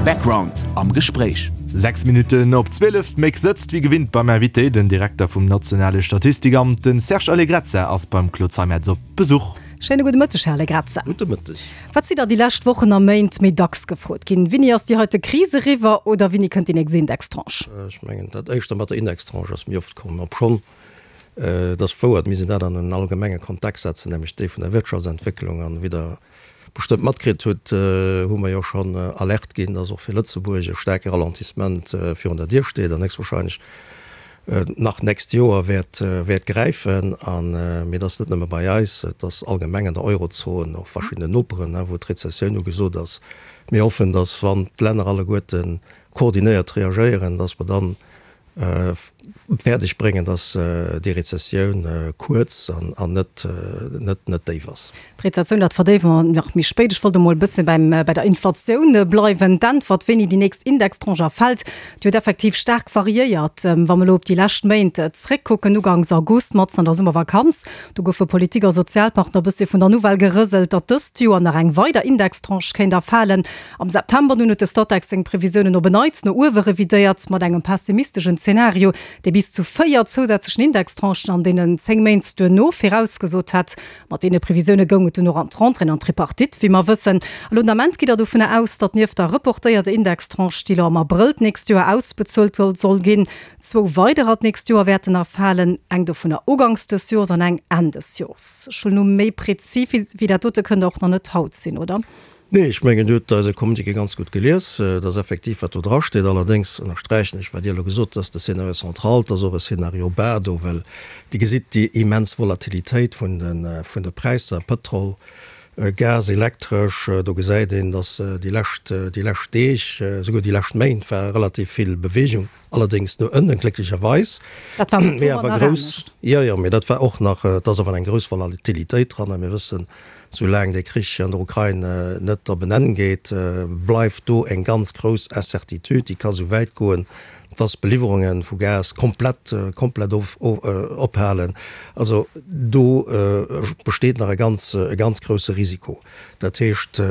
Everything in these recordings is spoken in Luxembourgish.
Background am Gespréich. 6 Minutten op 12, d'Méck sëtzt wéi gewinnt beim Invité, den Direkter vum nationale Statistikamt, den Serge Allegrezza ass beim Claude Zeimetz op Besuch. Schéine gudde Mëtteg, Här Allegrezza. Gudde Mëtteg. Wat si der déi lescht Wochen a Méint méi dacks gefrot ginn? Wini ass déi heite Kris eriwwer oder wini kënnt déi nächst Indextranche? Ech mengen, dat éischter mat der Indextranche ass méi oft komm, obschonn et ass wouer, et misst een dat an en allgemenge Kontext setzen, nämlech dee vun der Wirtschaftsentwécklung. An wéi Der bestëmmt matkritt hutt, hu mer jo schonn Alerte ginn, dass och fir Lëtzebuerg e staarke Ralentissement virun der Dier steet an héchstwahrscheinlech nach d'nächst Joer wäert wäert gräifen. An, mee et ass net nëmme bei eis, et ass allgemeng an der Eurozon, och verschiddenen Noperen, wou d'Rezessioun ugesot ass. Mir hoffen, dass, wann d'Länner alleguerte koordinéiert reagéieren, dass mer dann fäerdeg bréngen, dass déi Rezessioun kuerz an net net déif ass. D'Rezessioun, dat verdéiwe mer nach méi spéit. Ech wollt emol e bësse beim bei der Inflatioun bleiwen. D'Äntwert, wéini déi nächst Indextranche erfält, déi huet effektiv staark variéiert. Wa mer elo op déi lescht Méint zréckkucken, uganks August, matzen an der Summervakanz, do goufe Politik a Sozialpartner e bëssi vun der Nouvelle gerëselt, datt dëst Joer nach eng weider Indextranche kéint erfalen. Am September nun huet de Statec seng Previsiounen op en Neits no uewe revidéiert, mat engem pessimisteschen Zenario, dee bis zu 4 zousätzlechen Indextranchen an deenen 10 Méint duerno virausgesot hätt. Mat deene Previsioune goung et dunn och an d'Rentrée an d'Tripartite, wéi mer wëssen. Elo den Ament gitt Der dovunner aus, datt nieft der reportéierter Indextranche, déi elo am Abrëll d'nächst Joer ausbezuelt soll ginn, zwou weiderer d'nächst Joer wäerten erfalen, eng dovunner uganks des Jores an eng Enn des Jores. Ech huelen u méi prezis wéi dat dote kënnt Der och nach net haut sinn, oder? Nee, ech mengen, Dir hutt eise Communiqué ganz gutt gelies. Et ass effektiv, wat do drasteet. Allerdéngs ënnersträichen ech, wat Dir elo gesot hutt, dass de Scénario central, et ass och e Scénario bas do, well Dir gesitt déi immens Volatilitéit vun de, vun de Präisser, Pëtrol, Gas, Elektresch. Do gesäit een, dass déi lescht, déi lescht Deeg, esouguer déi lescht Méint war relativ vill Bewegung, allerdéngs no ënnen, glécklecherweis. Dat war am Oktober nach anescht. Jo, jo, mee dat war och nach, et ass awer eng grouss Volatilitéit dran a mir wëssen, Soulaang dee Krich an der Ukrain net op en Enn geet, bleift do eng ganz grouss Incertitude. Déi ka sou wäit goen, dass d'Beliwwerunge vu Gas komplett, komplett ophalen. Also do besteet nach e ganz, e ganz grousse Risiko. Dat heescht,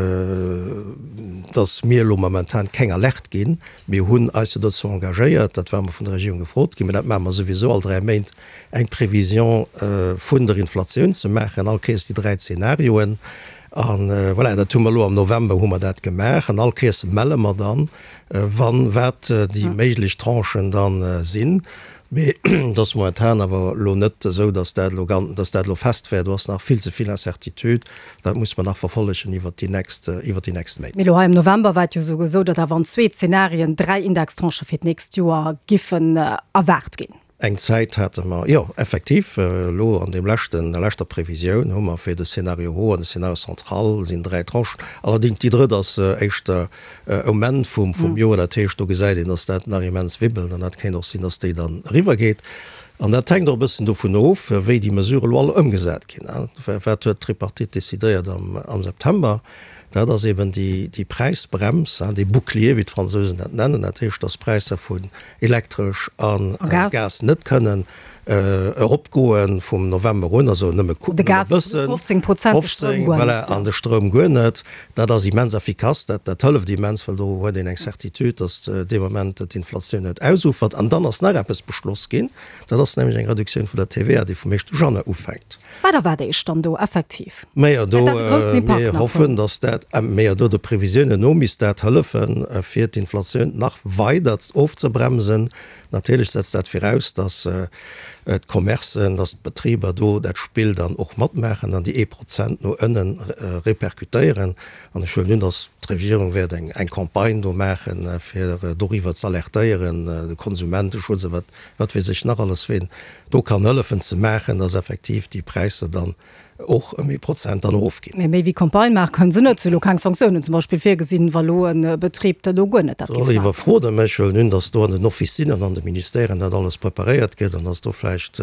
dass mir elo momentan keng Alerte ginn. Mir hunn eis jo dozou engagéiert, dat war mer vun der Regierung gefrot ginn, mä dat maache mer souwisou all 3 Méint, eng Prévision vun der Inflatioun ze maachen, all Kéiers déi 3 Zeenarioen. A voilà, dat hu mer elo am November hu mer dat gemaach an all Kéiers melle mer dann, wann, wat déi méiglech Tranchen dann sinn. Mee et ass momentan awer elo net esou, datt dat elo gan, datt dat elo fest wär. Do ass nach vill ze vill Incertitude. Dat muss mer nach verfollegen iwwert déi nächst, iwwert déi nächst Méint. Mee elo hei am November war et jo esou esou, datt awer an zwee Zenarien 3 Indextranchë fir d'nächst Joer giffen erwaart ginn. Eng Zäit hate mer, jo, effektiv, elo an deem leschten, der leschter Previsioun hu mer fir de Scénario haut an de Scénario central sinn 3 Tranchen. Allerdéngs déi drëtt ass éischter um Enn vum, vum Joer. Dat heescht, do gesäit een, dass dat nach immens wibbelt an dat kéint och sinn, dass déi dann eriwwergeet. An dat hänkt och e bëssen dovun of, wéi déi Mesurë elo all ëmgesat ginn. Wat huet d'Tripartite decidéiert am, am September? Dat ass eben déi, déi Präisbrems, dee Bouclier, wéi d'Fransousen dat nennen. Dat heescht, dass d'Präisser vun Elektresch a Gas net kënnen eropgoe vum November un, also nëmme e bëssen, 15, voilà, an de Stroum guer net. Dat ass immens effikass, dat dat hëlleft immens, well do huet een eng Certitude, datt dee Moment d'Inflatioun net ausufert. An dann ass nach eppes beschloss ginn, dat ass nämlech eng Reduktioun vun der TVA, déi vum éischte Januar ufänkt. Wat erwaart Iech dann do effektiv? Majo, do, mir hoffen, datt dat, majo, do de Previsiounen no misst dat hëllefen, fir d'Inflatioun nach weider ofzebremsen. Natierlech setzt dat viraus, datt d'Commercen, datt d'Betriber do dat Spill dann och matmaachen an déi ee Prozent no ënne repercutéieren. An ech huelen un, datt d'Regierung wäert eng Campagne do maachen, fir doriwwer z'alertéieren, de Konsumenteschutz a wat, wat weess ech nach alles, ween do kann hëllefen ze maachen, datt effektiv déi Präisser dann och ëm ee Prozent dann erofginn. Mee méi wéi Campagne maache kënnen se net. Si hu lo keng Sanktiounen zum Beispill virgesinn, wa lo e Betrib dat elo guer net dat géif maachen. Iwwerfrot Der mech. Huelen un, datt do an den Officinen an de Ministèren dat alles preparéiert gëtt an datt do vläicht.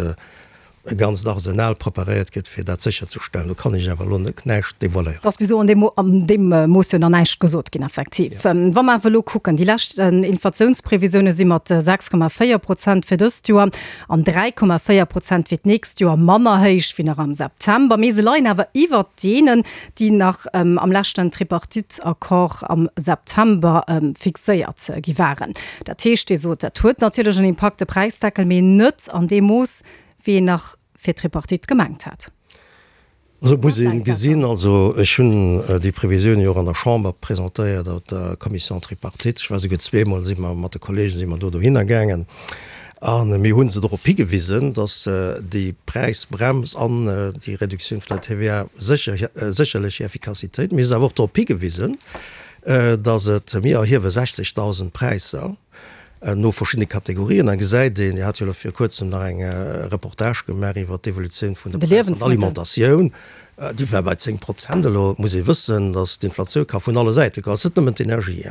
e ganzt Arsenal preparéiert gëtt, fir dat sécherzestellen. Do kann ech awer elo net näischt devoiléieren. Et ass bis elo an deem, an deem Mooss jo nach näischt gesot ginn, effektiv. Wa mer awer elo kucken, déi lescht Inflatiounsprevisioune si mat 6,4 Prozent fir dëst Joer an 3,4 Prozent fir d'nächst Joer manner héich wéi nach am September. Mee se leien awer iwwert deenen, déi nach am leschten Tripartite-Accord am September fixéiert gi waren. Dat heescht, Dir sot, dat huet natierlech en Impakt, de Präisdeckel, mee net an deem Mooss, wéi een nach fir d'Tripartite gemengt hat. Also et muss ee gesinn, also ech hunn déi Previsioun jo och an der Chamber presentéiert, op der Commission tripartite, ech war souguer zweemol, si mer mat de Kollegen si mer do dohinner gaangen a mir hu se dorop higewisen, datt déi Präisbrems an déi Reduktioun vun der TVA sécher sécherlech hir Effikassitéit, mir hu se awer och dorop higewisen, datt et, mir erhiewe 60.000 Präisser, no verschiddene Kategorien. Da gesäit een, Dir hat jo elo vir kuerzem nach eng Reportage gemaach iwwert d'Evolutioun vun de Präisser an der Alimentatioun, déi war bei 10 Prozent. Elo muss ee wëssen, datt d'Inflatioun ka vun alle Säite kommen. Et ass net nëmmen d'Energie.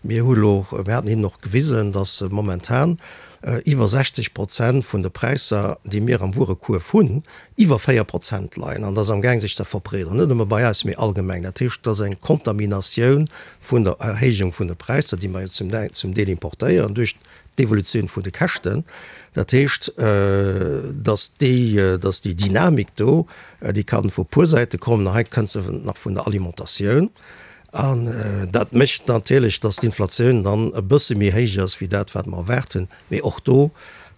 Mir hu elo, mir haten hinnen och gewisen, datt momentan iwwer 60 Prozent vun de Präisser, déi mir am Wuerekuerf hunn, iwwer 4 Prozent leien. An dat ass amgaang sech ze verbreederen, net nëmme bei eis, mee allgemeng. Dat heescht, et ass eng Kontaminatioun vun der Erhéijung vun de Präisser, déi mer jo zum Deel importéieren, duerch d'Evolutioun vun de Käschten. Dat heescht, datt déi, datt déi Dynamik do, déi ka vu puer Säite kommen, a hei kënnt se nach vun der Alimentatioun. An dat mécht natierlech, datt d'Inflatioun dann e bësse méi héich ass wéi dat, wat mer erwaart hunn. Mee och do,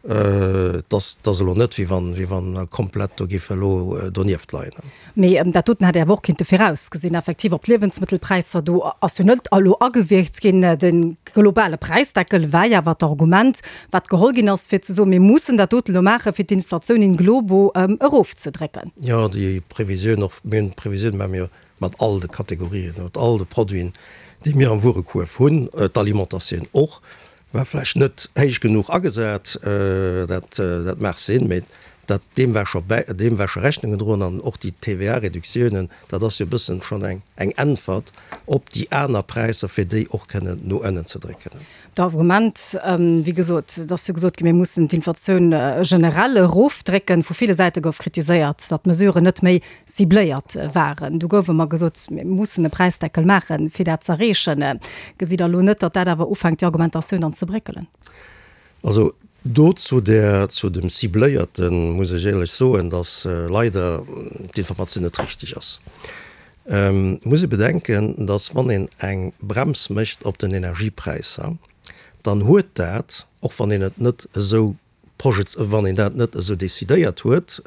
et ass, et ass elo net, wéi wann, wéi wann mer komplett do géife elo donieft leien. Mee dat doten hätt ee awer och kinnte virausgesinn. Effektiv, op d'Liewensmëttelpräisser, do ass jo net elo agewierkt ginn. De globale Präisdeckel war jo awer d'Argument, wat geholl ginn ass, fir ze soen, mir mussen dat doten elo maachen, fir d'Inflatioun in globo erofzedrécken. Jo, déi Previsioun och, mir hunn d'Previsioun maache mir jo mat all de Kategorien, mat all de Produiten, déi mir am Wuerekuerf hunn, d'Alimentatioun och. War vläicht net héich genuch agesat, dat dat mag sinn, mee dat deem war scho bäi, deem war scho Rechnung gedroen. An och déi TVA-Reduktiounen, dat ass jo e bëssen schonn eng eng Äntwert op déi aner Präisser, fir déi och kënnen no ënnen ze drécken. D'Argument, wéi gesot, et ass jo gesot ginn, mir mussen d'Inflatioun generell erofdrécken. Vu ville Säite gouf kritiséiert, datt d'Mesuren net méi cibléiert waren. Du gouf ëmmer gesot, mir mussen e Präisdeckel maachen, fir dat z'erreechen. Gesitt Der elo net, datt dat awer ufänkt, déi Argumentatioun dann ze bréckelen? Also do zu där, zu dem Cibléierten muss ech éierlech soen, datt leider d'Informatioun net richteg ass. Et muss ee bedenken, datt wann een eng Brems mécht op den Energiepräisser, dann huet dat, och wann een et net esou Projets, wann een dat net esou décidéiert huet,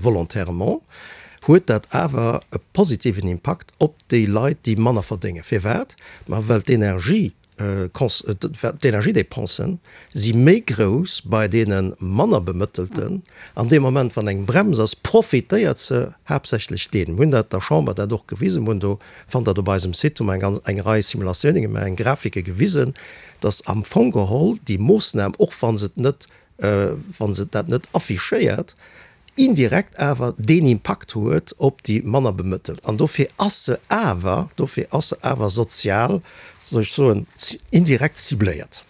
volontairement, huet dat awer e positiven Impakt op déi Leit, déi manner verdéngen. Firwat? Ma well d'Energie, d'Energiedépensen si méi grouss bei deene manner Bemëttelten. An deem Moment, wann eng Brems ass, profitéiert se haaptsächlech deenen. Mir hunn dat der Chamber dat och gewisen, mir hunn do, fannt Der et op eisem Site, hu mer eng ganz, eng Rei Simulatioune gemaach, eng Grafike gewisen, dass am Fong geholl déi Moossnam, och wa se et net, wa se dat net affichéiert, indirekt awer deen Impakt huet op déi manner Bemëttelt. An dofir ass se awer, dofir ass se awer sozial, soll ech soen, indirekt cibléiert.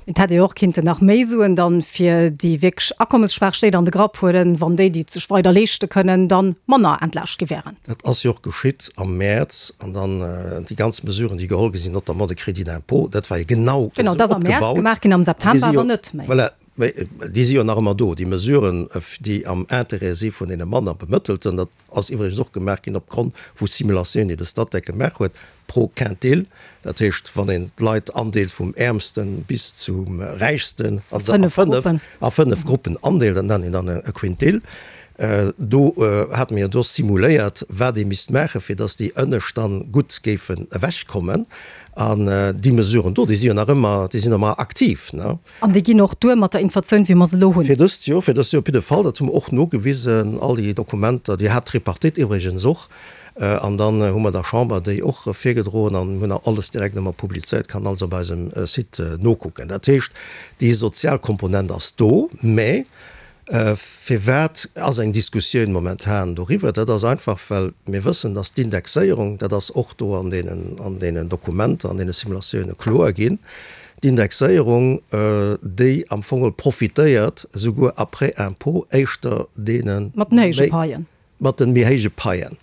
Et hätt ee jo och kinnten nach méi Suen dann fir déi wierklech akommesschwaach Stéit an de Grapp huelen, wann déi, déi et sech weider leeschte kënnen, dann manner entlaascht gi wären. Dat ass jo och geschitt am Mäerz. An dann déi ganz Mesuren, déi geholl gi sinn, notamment de Crédit d'impôt, dat war jo genau esou opgebaut. Genau, dat ass am Mäerz gemaach ginn, am September awer net méi. Voilà, mä déi si jo nach ëmmer do, déi Mesuren, déi am Intérêt si vun deene manner Bemëttelten. Dat ass iwwregens och gemaach ginn opgrond vu Simulatiounen, déi de Statec gemaach huet. Pro Quintil, dat heescht wann een d'Leit andeelt vum Äermsten bis zum Räichsten, also a 5 a 5 Gruppen andeelt, dat nennt een dann e Quintil, do hate mir jo do simuléiert, wat ee misst maachen, fir datt déi Ënnescht dann gutt géifen ewechkommen. An déi Mesuren do, déi si jo nach ëmmer, déi sinn ëmmer aktiv, ne? An déi ginn och duer mat der Inflatioun, wéi mer se elo hunn. Fir dëst Joer, fir dëst Joer op jidde Fall, dat hu mer och nogewisen, all déi Dokumenter, déi hat d'Tripartite iwwregens och. An dann hu mer der Chamber déi och virgedroen an hunn alles direkt ëmmer publizéiert, kann alles op eisem Site nokucken. Dat heescht, déi sozial Komponent ass do. Mä firwat ass eng Diskussioun momentan doriwwer? Dat ass einfach, well mir wëssen, dass d'Indexéierung, dat ass och do an deenen, an deenen Dokumenter, an deene Simulatioune kloer ginn. D'Indexéierung, déi am Fong profitéiert esouguer après impôt éischter deene Mat den héije Paien. Mat den méi héije Paien.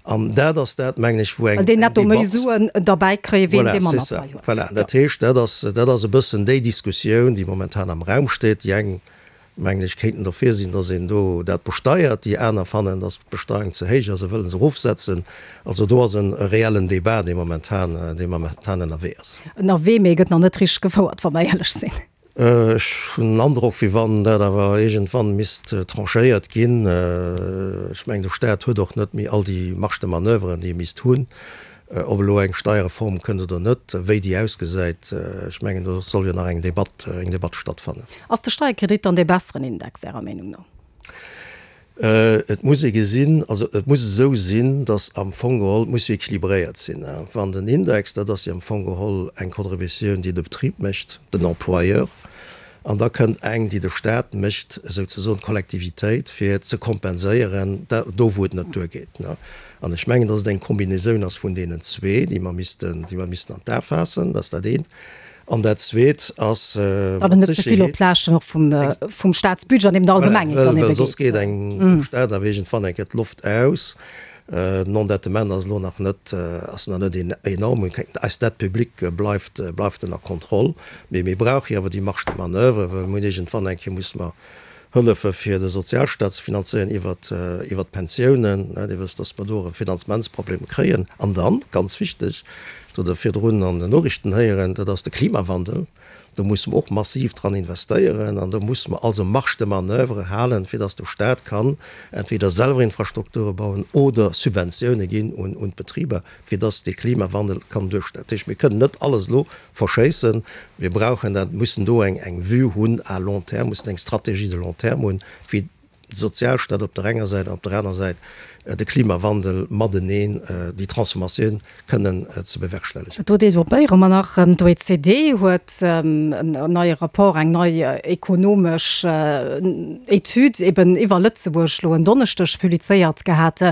An dat ass dat, mengen ech, wou eng Well déi netto méi Suen derbäi kréien, wéi een, dee manner Pai huet. Voilà, dat heescht, dat ass, dat ass e bëssen déi Diskussioun, déi momentan am Raum steet. Déi eng, mengen ech, kéinten dofir sinn, datt een do dat besteiert, déi aner fannen, datt d'Besteuerung ze héich ass a wëlle se erofsetzen. Also do ass e reellen Débat, dee momentan, dee momentan ënnerwee ass. Ënnerwee, mee e gëtt nach net richteg gefouert, wa mer éierlech sinn. Ech hunn den Androck, wéi wann dat awer iergendwann misst tranchéiert ginn. Ech mengen, de Staat huet och net méi all déi Marge de manoeuvre, déi e misst hunn. Ob elo eng Steierreform kënnt oder net, wéi déi ausgesäit, ech mengen, do soll jo nach eng Debatt, eng Debatt stattfannen. Ass de Steierkredit dann dee besseren Index, Ärer Meenung no? Et muss ee gesinn, also et muss esou sinn, datt am Fong geholl, et muss jo équilibréiert sinn. Wann den Index, dat ass jo am Fong geholl eng Contributioun, déi de Betrib mécht, den Employeur, an da kënnt eng, déi de Stat mécht, souzesoen d'Kollektivitéit, fir ze kompenséieren do, wou et net duergeet. An ech mengen, datt et eng Kombinaisoun ass vun deenen zwee, déi mer missten, déi mer missten an d'A faassen. Dat ass dat eent. An dat Zweet ass mat Datt et net ze vill op Sécherheet. d'Laaschten och vum, vum Staatsbudget an eben der Voilà, Allgemengheet well, dann well ebe soss geet. geet engem dem Staat awer iergendwann eng Kéier d'Loft aus. Den Endettement ass elo nach net, ass nach net enorm. Eis Dette publique bleift, bleift ënner Kontroll. Mee mir brauche jo awer déi Marge de manoeuvre, well mir hunn iergendwann eng Kéier musse mer Hëllefe fir de Sozialstaat ze finanzéieren iwwert iwwert d'Pensiounen. Dir wësst, datt mer do e Finanzementsproblem kréien. An dann, ganz wichteg, dat hutt Der virdrun an den Noriichten héieren, dat ass de Klimawandel. Do musse mer och massiv dran investéieren an do musse mer also Marge de manoeuvre halen, fir datt de Staat kann entweder selwer Infrastrukture bauen oder Subventioune ginn un d'Betriber. fir dass dee Klimawandel kann duerstellen. Dat heescht, mir kënnen net alles elo verschéissen. Mir brauchen dat, mussen do eng eng Vue hunn à long terme, mussen eng Stratégie de long terme hunn, wéi de Sozialstaat op der enger Säit an op der aner Säit de Klimawandel mateneen, déi Transformatioun kënnen ze bewerkstellegen. Do developpéiere mer nach. D'OECD huet en neie Rapport, eng nei ekonomesch Etüd eben iwwer Lëtzebuerg elo en Donneschdeg publizéiert gehat.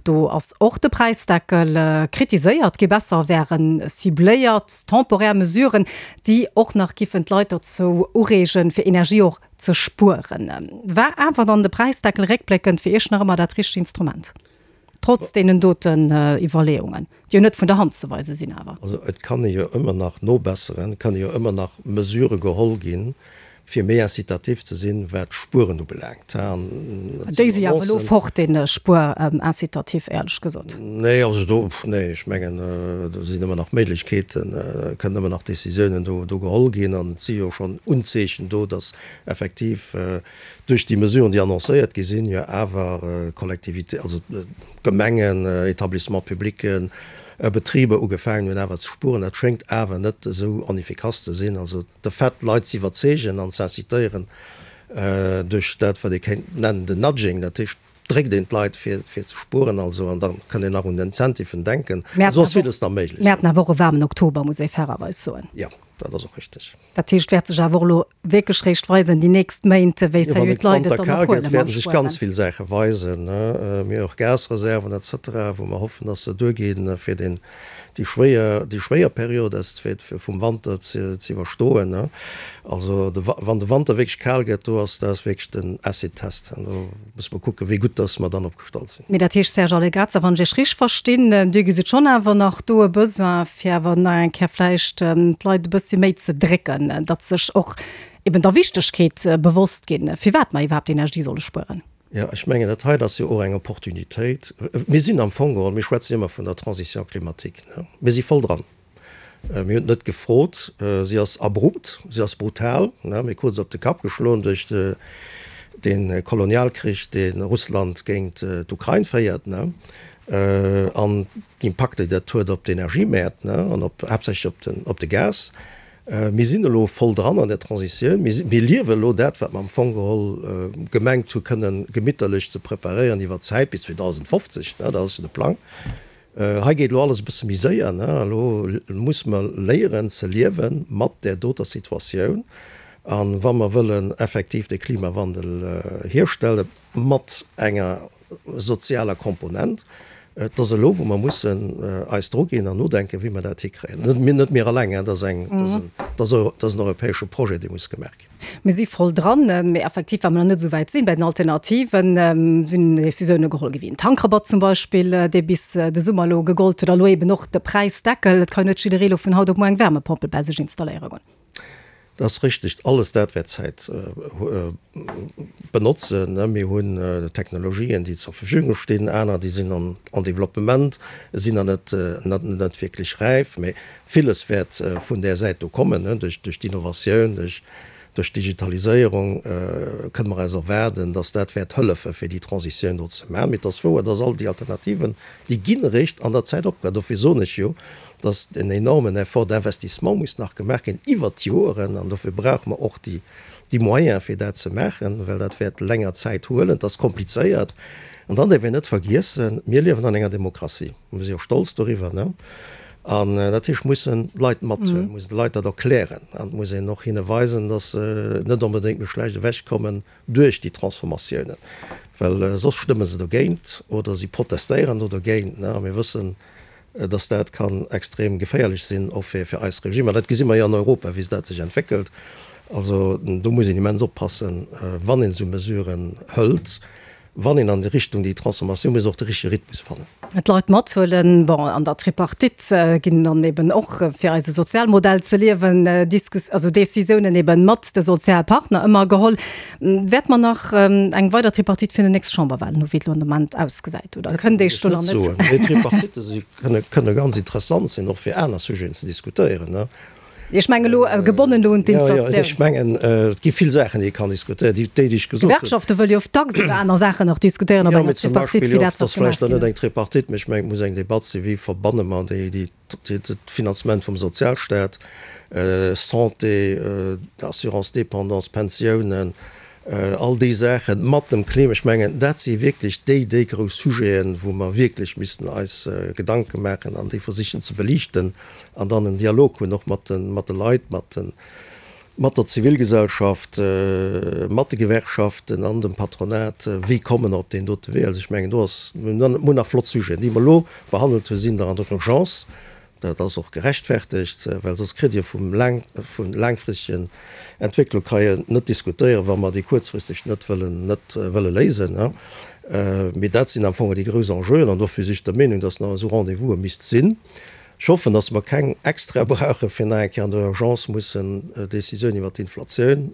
Do ass och de Präisdeckel kritiséiert gi. Besser wäre cibléiert, temporär Mesuren, déi och nach giffen d'Leit dozou ureegen, fir Energie och ze spueren. War awer dann de Präisdeckel réckbléckend fir Iech nach ëmmer dat richtegt Instrument, trotz deenen doten Iwwerleeungen, déi jo net vun der Hand ze weise sinn awer? Also et kann ee jo ëmmer nach nobesseren, et kënne jo ëmmer nach Mesurë geholl ginn, fir méi incitatif ze sinn, wat d'Spueren ubelaangt. Déi si awer elo fort, dee Spuerincitatif, éierlech gesot. Nee, also do, nee, ech mengen, do sinn ëmmer nach Méiglechkeeten, kënnen ëmmer nach Décisiounen do, do geholl ginn. An et si jo schonn Unzeechen do, datt effektiv duerch déi Mesuren, déi annoncéiert gi sinn, jo awer Collectivités, also Gemengen, Établissements publics, Betriber ugefaangen hunn awer ze spueren. Dat schéngt awer net esou onefficace ze sinn. Also de Fait, d'Leit ze iwwerzeegen an ze incitéieren duerch dat, wat ee kéint nennen den Nudging, dat heescht, dréckt een d'Leit fir ze spueren, also, an da kënnt een nach un Incentiven denken, esou ass villes nach méiglech. Mir haten awer och e waarmen Oktober, muss ee fairerweis soen. Jo, dat ass och richteg. Dat heescht, wäert sech awer och elo wierklech réischt weisen déi nächst Méint, wéi sérieux d'Leit et dann och huele mat Spueren. Wann de Wanter kal gëtt, wäerte sech ganz vill Saache weisen. Mir hu och Gasreserven et cetera, wou mer hoffen, dass se duerginn, fir den, déi schwéier, déi schwéier Period ass, fir, fir vum Wanter ze, ze iwwerstoen. Also de, wann de Wanter wierklech kal gëtt, do ass, dat ass wierklech den Acid-Test. An do musse mer kucken, wéi gutt dass mer dann opgestallt sinn. Mee dat heescht, Serge Allegrezza, wann ech Iech richteg verstinn, Dir gesitt schonn awer nach do e Besoin, fir awer nach eng Kéier vläicht d'Leit e bëssi méi ze drécken, datt sech och eben der Wichtegkeet bewosst ginn, firwat mer iwwerhaapt Energie solle spueren. Jo, ech mengen, dat hei ass jo och eng Opportunitéit. Mir sinn am Fong geholl, mir schwätzen jo ëmmer vun der Transition climatique, ne? Mir si voll dran. Mir hunn et net gefrot. Si ass abrupt, si ass brutal, ne? Mir krute se op de Kapp geschloen duerch dee Kolonialkrich, dee Russland géint d'Ukrain féiert, ne? An d'Impakter, déi dat huet op d'Energiemäert, ne? An op, haaptsächlech op den, op de Gas. Mir sinn elo voll dran an der Transitioun. Mir liewen elo dat, wat mer am Fong geholl gemengt hu kënnen gemitterlech ze preparéieren iwwer d'Zäit bis 2050, dat ass jo de Plang. Hei geet elo alles e bësse méi séier. Elo musse mer léieren ze liewe mat där doter Situatioun. A wa mer wëllen effektiv de Klimawandel hierstellen mat enger sozialer Komponent, Et ass elo, wou mer mussen eis druginn an nodenken, wéi mer dat hikréien. Net mir, net mir alleng, dat ass eng, dat ass en Dat ass en europäesche Projet, dee muss gemaach ginn. Mir si voll dran, mee effektiv, well mer nach net esou wäit sinn bei den Alternativen, sinn Decisioune geholl gi wéi en Tankrabatt zum Beispill, dee bis de Summer elo gegollt huet, a elo eben och de Präisdeckel. Et ka jo net jidderee elo vun haut op muer eng Wärmepompel bei sech installéiere goen. Dat ass richteg. Alles dat wäert Zäit benotzen. Mir hunn Technologien, déi zur Verfügung stinn, aner, déi sinn en développement, sinn nach net net wierklech räif. Mee villes wäert vun där Säit do kommen, duerch d'Innovatioun, duerch d'Digitaliséierung kënne mer eis erwaarden, datt dat wäert hëllefen, fir déi Transitioun do ze maachen. Mee et ass wouer, datt all déi Alternativen, déi ginn eréischt an der Zäit opgebaut. Dofir soen ech jo, datt en enormen Effort d'investissement muss nach gemaach ginn iwwert d'Joeren, an dofir brauche mer och déi Moyens, fir dat ze maachen, well dat wäert länger Zäit huelen. Et ass komplizéiert. An dann däerf een net vergiessen, Mir liewen an enger Demokratie. Mir si och stolz doriwwer. An dat heescht, mussen d'Leit mathuelen, mussen de Leit dat erklären an et muss een och hinne weisen, datt se net onbedéngt méi schlecht ewechkommen duerch déi Transformatiounen, well soss stëmme se dogéint oder si protestéieren do dogéint. A mir wëssen, datt dat kann extrem geféierlech sinn, och fir eis Regimer. Dat gesi mer jo an Europa, wéi dat sech entwéckelt. Also do muss een immens oppassen, wann een esou Mesuren hëlt. Wann een an déi Richtung, déi Transformatioun muss och de richtege Rhythmus fannen. D'Leit mathuelen. Bon, an der Tripartite ginn dann eben och, fir eise Sozialmodell ze liewen, Diskus-, also Décisiounen eben mat de Sozialpartner ëmmer geholl. Wäert mer nach eng weider Tripartite fir déi nächst Chamberwahlen hu wéi et elo an de Moment ausgesäit, oder kënnt Iech do nach net? Dat wëll ech net soen. Mee Tripartitte si, kënne, kënne ganz interessant sinn, och fir aner Sujeten ze diskutéieren. Ech mengen elo gebonnen do un d'Inflatioun. Jo, jo, ech mengen, et gi vill Saachen, déi ee kann diskutéieren, déi, déi ech gesot hunn. D'Gewerkschafte wëlle jo oft dacks iwwer aner Saachen nach diskutéieren op enger Tripartite, wéi dat, wat gemaach ginn ass. Jo, mee zum Beispill, dat ass vläicht dann net eng Tripartite, mee ech mengen, et muss eng Debatt sinn, wéi verbanne mer déi, déi, de Finanzement vum Sozialstaat, Santé, Assurance dépendance, Pensiounen, all déi Saachen mat dem Klima. Ech mengen, dat si wierklech déi, déi grouss Sujeten, wou mer wierklech missten eis Gedanke maachen an déi versichen ze beliichten. An dann en Dialog hunn och mat de, mat de Leit, mat de, mat der Zivilgesellschaft, mat de Gewerkschaften an dem Patronat, wéi komme mer op deen dote Wee. Also ech mengen, do ass, mir hunn nach flott Sujeten. Déi mer elo behandelt hunn, sinn der an der Urgence. Dat ass och gerechtfertegt, well soss kritt Dir vum laang, vu laangfristegen Entwécklung ka een net diskutéieren, wa mer déi kuerzfristeg net wëllen, net wëlle léisen. Mee dat sinn am Fong déi grouss Enjeuen an dofir si ech der Meenung, dass nach esou Rendez-vouse misst sinn. Ech hoffen, dass mer keng extra brauchen, fir nach eng Kéier an der Urgence mussen Décisioun iwwert d'Inflatioun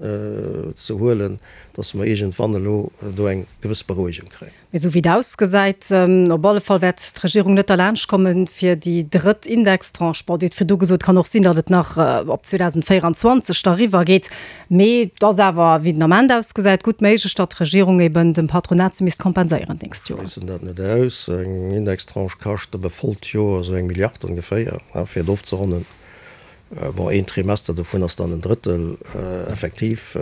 ze huelen, dass mer iergendwann elo do eng gewëss Berouegung kréien. Mee esou wéi et ausgesäit, op alle Fall wäert d'Regierung net derlaanscht kommen, fir déi drëtt Indextranche, bon, Dir hutt virdu gesot, kann och sinn, datt et nach op 2024 da eriwwer geet, mee et ass awer, wéi den Ament ausgesäit, gutt méiglech, datt d'Regierung eben dem Patronat se misst kompenséieren d'nächst Joer. Ech schléissen dat net aus. Eng Indextranche kascht op e vollt Joer esou eng Milliard ongeféier, fir et ofzeronnen. Bon, een Trimester dovun ass dann en Drëttel effektiv,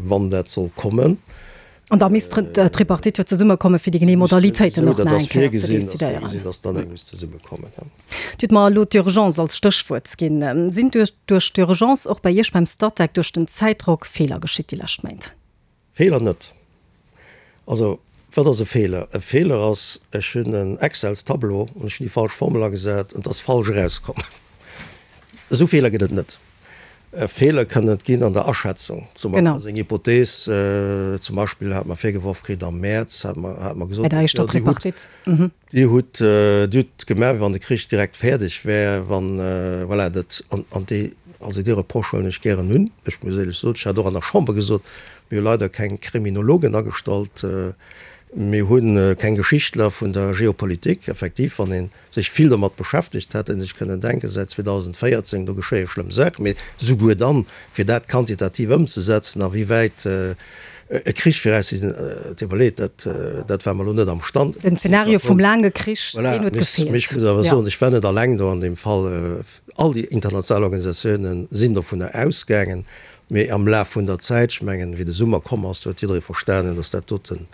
wann dat soll kommen. An da misst d'Tripartite jo zesummekommen, fir déi genee Modalitéiten och nach eng Kéier ze decidéieren. Dir hutt mer elo d'Urgence als Stéchwuert ginn. Sinn duerch d'Urgence och bei Iech beim Statec duerch den Zäitdrock Feeler geschitt déi lescht Méint? Feeler net. Also, wat ass e Feeler? E Feeler ass, ech hunn en Excels-Tableau an ech hunn déi falsch Formel agesat an et ass falsch erauskomm. Esou Feeler gëtt et net. Feeler kënnen et ginn an der Aschätzung. Zum Beispill ass eng Hypothees, zum Beispill hat mer virgeworf kritt am Mäerz, hat mer, hat mer gesot, Bei der éischter Tripartite. Dir hutt, Dir hutt gemaach, wéi wann de Krich direkt fäerdeg wär, wann, voilà, dat, an, an déi, also dee Reproche huelen ech gären un. Ech muss éierlech soen, ech hat och an der Chamber gesot, mir hu leider keng Kriminologen agestallt, mir hu keng Geschichtler vun der Geopolitik. Effektiv, wann een sech vill domat beschäftegt, hätt en sech kënnen denken, säit 2014, do geschéie schlëmm Saachen, mee souguer dann, fir dat quantitativ ëmzesetzen, a wéi wäit e Krich fir eis sinn, et deet mer leed, dat, dat ware mer elo net am Stand. Den Zeenario vum laange Krich, deen huet gefeelt. Voilà, mee ech muss awer soen, ech war net alleng do an deem Fall. All déi international Organisatiounen sinn dovunner ausgaangen, mee am Laf vun der Zäit, ech mengen, wéi de Summer komm ass, do huet jidderee verstanen, datt dat doten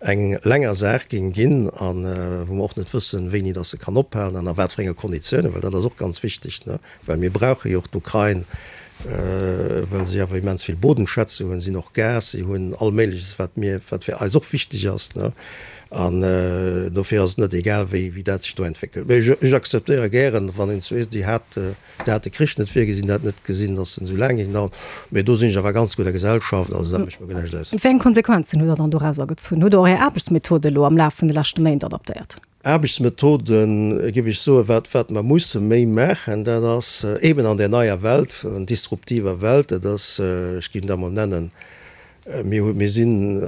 eng länger Saach géing ginn a wou mer och net wëssen, wéini dass se kann ophalen an a wat fir enge Konditiounen, well dat ass och ganz wichteg, ne, well mir brauche jo och d'Ukrain. Well si awer immens vill Bodenschätze hunn. Si hunn och Gas, si hunn all Méigleches, wat mir, wat fir eis och wichteg ass, ne. An dofir ass et net egal, wéi, wéi dat sech do entwéckelt. Mee ech, ech akzeptéiere gären, wann een zweet, déi hat, déi hat de Krich net virgesinn, déi hat net gesinn, datt en esou laang géing daueren. Mee do sinn ech awer ganz gudder Gesellschaft, also dat mécht mer guer näischt aus. Wéi eng Konsequenzen hutt Der dann dorauser gezunn? Hutt Der och Är Aarbechtsmethode elo am Laf vun de leschte Méint adaptéiert? Aarbechtsmethoden, géif ech soen, wat, wat mer musse méi maachen, dat ass eeben an där neier Welt, disruptiver Welt, dat ass, ech géif dat emol nennen, mir hu, mir si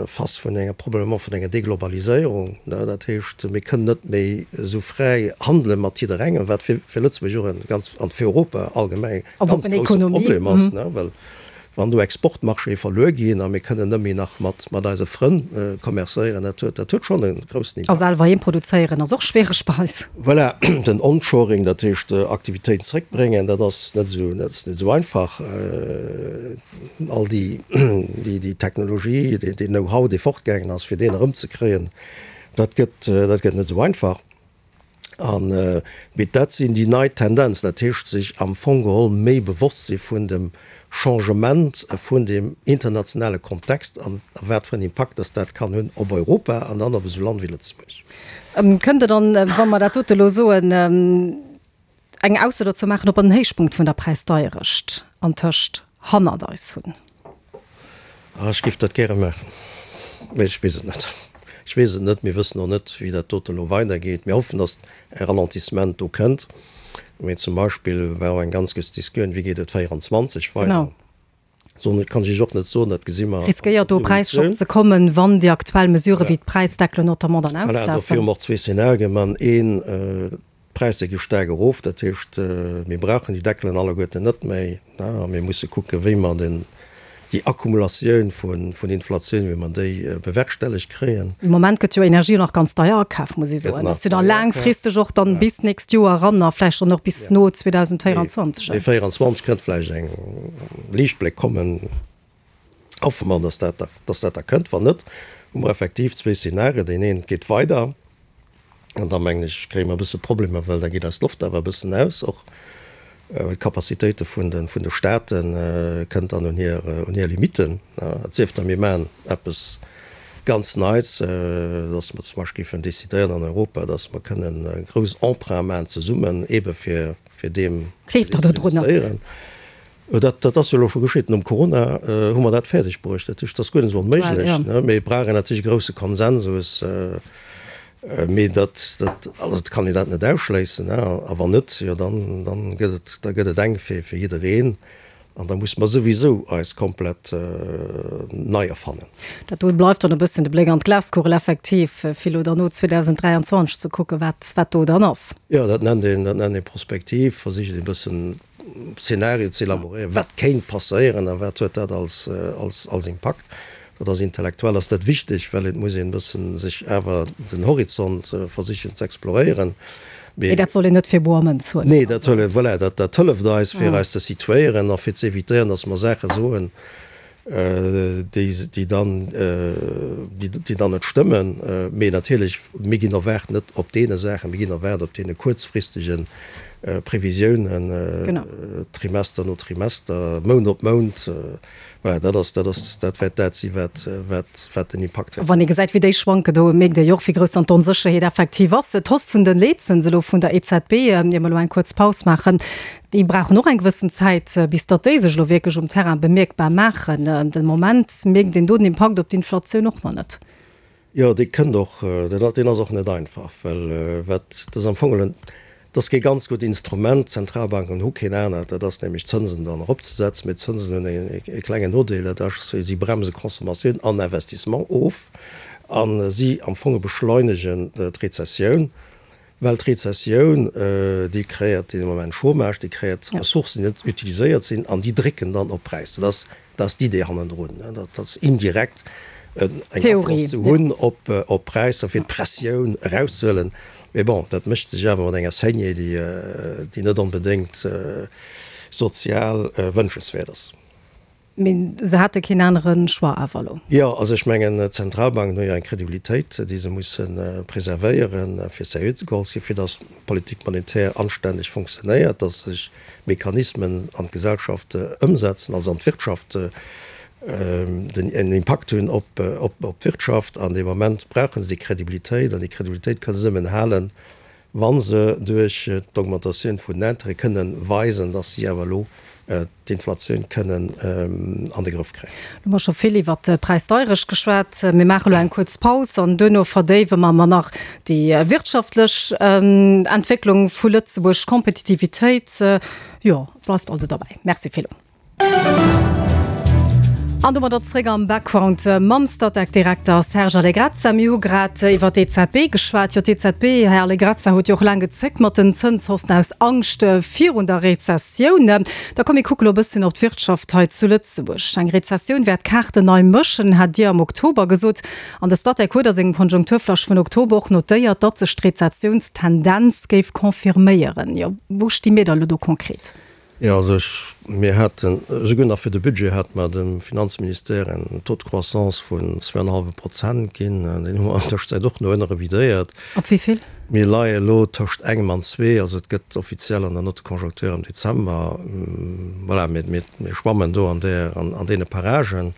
face vun enger, probablement vun enger Deglobaliséierung, ne, dat heescht, mir kënnen net méi esou fräi handele mat jidderengem, wat fir, fir Lëtzebuerg och e ganz, an fir Europa allgemeng e ganz grousse Problem ass, ne, well Wann do Exportmarchéë verluer ginn a mir kënnen net méi nach mat mat eise Frënn commercéieren, dat huet dat huet schonn e groussen Impakt. A selwer heem produzéieren ass och schwiereg bei eis. Voilà, den Onshoring, dat heescht Aktivitéiten zréckbréngen, dat ass net esou dat ass net esou einfach. All déi déi déi Technologie, deen deen Know-how, dee fortgaangen ass, fir deen erëmzekréien, dat gëtt dat gëtt net esou einfach. An, mee dat sinn déi nei Tendenzen, dat heescht sech am Fong geholl méi bewosst si vun dem Changement vun dem internationale Kontext an a wat fir en Impakt dass dat kann hunn op Europa an dann op esou Land wéi Lëtzebuerg. Kënnt Der dann, wa mer dat dote elo soen, eng Ausso dozou maachen, ob mer den Héichpunkt vun der Präisdeierecht antëscht hannert eis hunn? Ah, ech géif dat gäre maachen, mee ech weess et net. Ech weess et net. Mir wëssen och net, wéi dat dote elo weidergeet. Mir hoffen, datt e Ralentissement do kënnt. Mee zum Beispill war och eng ganz grouss Discussioun, Wéi geet et 24 weider? Soen, kann ech Iech och net soen. Dat gesi mer. Riskéiert do e Präisschock ze kommen, wann déi aktuell Mesurë wéi d'Präisdeckelen notamment dann auslafen? Voilà, dofir hu mer och zwee Szenarien. Mer hunn een, D'Präisser gi staark erof, dat heescht, mir brauchen déi Deckelen alleguerten net méi a mir musse kucken, wéi mer den, déi Akkumulatioun vun Inflatioun, wéi mer déi bewerkstellegt kréien. De Moment gëtt jo Energie och nach ganz deier akaf, muss ee soen. Dat ass jo da laangfristeg och dann bis d'nächst Joer eran a vläicht dann och bis no 2024. Mee 2024 kënnt vläicht eng Liichtbléck kommen. Hoffe mer, dass dat, dass dat da kënnt. Wann net, hu mer effektiv zwee Szenarien. Deen een geet weider an da mengen ech, kréie mer e bësse Problemer, well da geet eis d'Loft awer e bëssen aus. Och well d'Capacitéite vun de, vun de Staate kënnt dann un hir, un hir Limitten. Et sief da mir maachen eppes ganz Neits, dass mer zum Beispill géifen decidéieren an Europa, dass mer kënnen grouss Emprunte maachen zesummen, eebe fir, fir deem Gleeft Der do drun? ze Dat, dat ass jo elo scho geschitt. Nom Corona hu mer dat fäerdeg bruecht. Dat heescht, dat ass guer net esou onméiglech, ne? Mee et brauch een natierlech e grousse Konsensus. Mee dat, dat, also et kann een dat net ausschléissen, ne? A wann net, jo dann, dann gëtt et, da gëtt et enk fir, fir jiddereen. An da musse mer souwisou eis komplett nei erfannen. Dat do bleift dann e bëssen de Bléck an d'Glaskugel effektiv, fir elo dann no 2023 ze kucken, wat, wat do dann ass. Jo, dat nennt een, dat nennt ee Prospektiv, versicht ee bëssen Zenario ze elaboréieren, wat kéint passéieren a wat huet dat als, als, als Impakt. Dat ass intellektuell ass dat wichteg, well et muss een e bëssen sech awer den Horizont versichen ze exploréieren. Mee dat soll een net fir boer Mënz huelen. Nee, dat soll een, voilà, dat, dat hëlleft eis fir eis ze situéieren a fir ze évitéieren, datt mer Saache soen, déi dann, déi dann net stëmmen. Mee natierlech, mir ginn erwaart net op deene Saachen, mir ginn erwaart op deene kuerzfristege Previsiounen, Trimester no Trimester, Mount op Mount. Voilà, dat ass, dat ass, dat wäert dat si wat, wat, wat den Impakt huet. Wann ee gesäit, wéi déi schwanken, do mierkt ee jo och, wéi grouss dann d'Onsécherheet effektiv ass. D'Hausse vun de Leetzëns elo vun der EZB, ier mer elo eng kuerz Paus maachen, Déi brauchen och eng gewëssen Zäit, bis datt déi sech elo wierklech um Terrain bemierkbar maachen. De Moment mierkt een do den Impakt op d'Inflatioun och nach net. Jo, dee kënnt och, deen ass och net einfach, well wat, dat ass am Fong geholl, dat ass kee ganz gutt Instrument, d'Zentralbanken hu keen anert, dat ass nämlech d'Zënsen dann eropzesetzen. Mee d'Zënsen hunn e klengen Nodeel, dat ass, si bremse Consommatioun an Investissement of a si am Fong beschleunegen d'Rezessioun. Well d'Rezessioun, déi kreéiert dee Moment Chômage, déi kreéiert Ressourcen, déi net utiliséiert sinn an déi drécken dann op d'Präisser. Dat ass, dat ass d'Idee hannendrun, dat ass indirekt eng Afloss ze hunn op d'Präisser, fir d'Pressioun erauszehuelen. Mee bon, dat mécht sech awer mat enger Saignée, déi, déi net onbedéngt sozial wënschenswäert ass. Mee se hate keen anere Choix awer elo. Jo, also ech mengen, d'Zentralbanken hu jo eng Kredibilitéit, déi se musse preservéieren, fir seriö ze geholl ze ginn, fir datt d'Politique monétaire anstänneg fonctionnéiert, datt sech d'Mechanismen an d'Gesellschaft ëmsetzen, also an d'Wirtschaft, den en Impakt hunn op d'Wirtschaft. An dee Moment brauche se déi Kredibilitéit, an déi Kredibilitéit kënne se nëmmen halen, wa se duerch d'Augmentatioun vun den Intérêt kënnen weisen, dass si awer elo d'Inflatioun kënnen an de Grëff kréien. Lo hu mer scho vill iwwert d'Präisdeierecht geschwat. Mir maache lo eng kuerz Paus an duerno verdéiwe mer mer nach déi wirtschaftlech Entwécklung vu Lëtzebuerg, d'Kompetitivitéit. Jo, bleift also derbäi. Merci fir elo. An domadder zréck am Background mam Statec-Direkter Serge Allegrezza. Mir hu grad iwwer d'EZB geschwat. Jo, d'EZB, Här Allegrezza, huet jo och laang gezéckt mat den Zënshaussen aus Angscht virun der Rezessioun. Da komm mir kucke lo e bësschen op d'Wirtschaft hei zu Lëtzebuerg. Eng Rezessioun wäert d'Kaarten nei mëschen, hat Dir am Oktober gesot. An de Statec huet a sengem Konjunkturflash vun Oktober och notéiert, datt sech d'Rezessiounstendenz géif confirméieren. Jo, wou sti mir da lo do konkret? Jo, also ech, mir haten, esouguer nach fir de Budget hate mer dem Finanzministère en Taux de croissance vun zweieinhalbe Prozent ginn. Deen hu mer an Tëschenzäit och no ënne revidéiert. Op wéi vill? Mir leie elo tëscht engem an zwee, also et gëtt offiziell an der Note de conjoncture am Dezember. Voilà, mir, mir, mir schwammen do an där, an, an deene Paragen.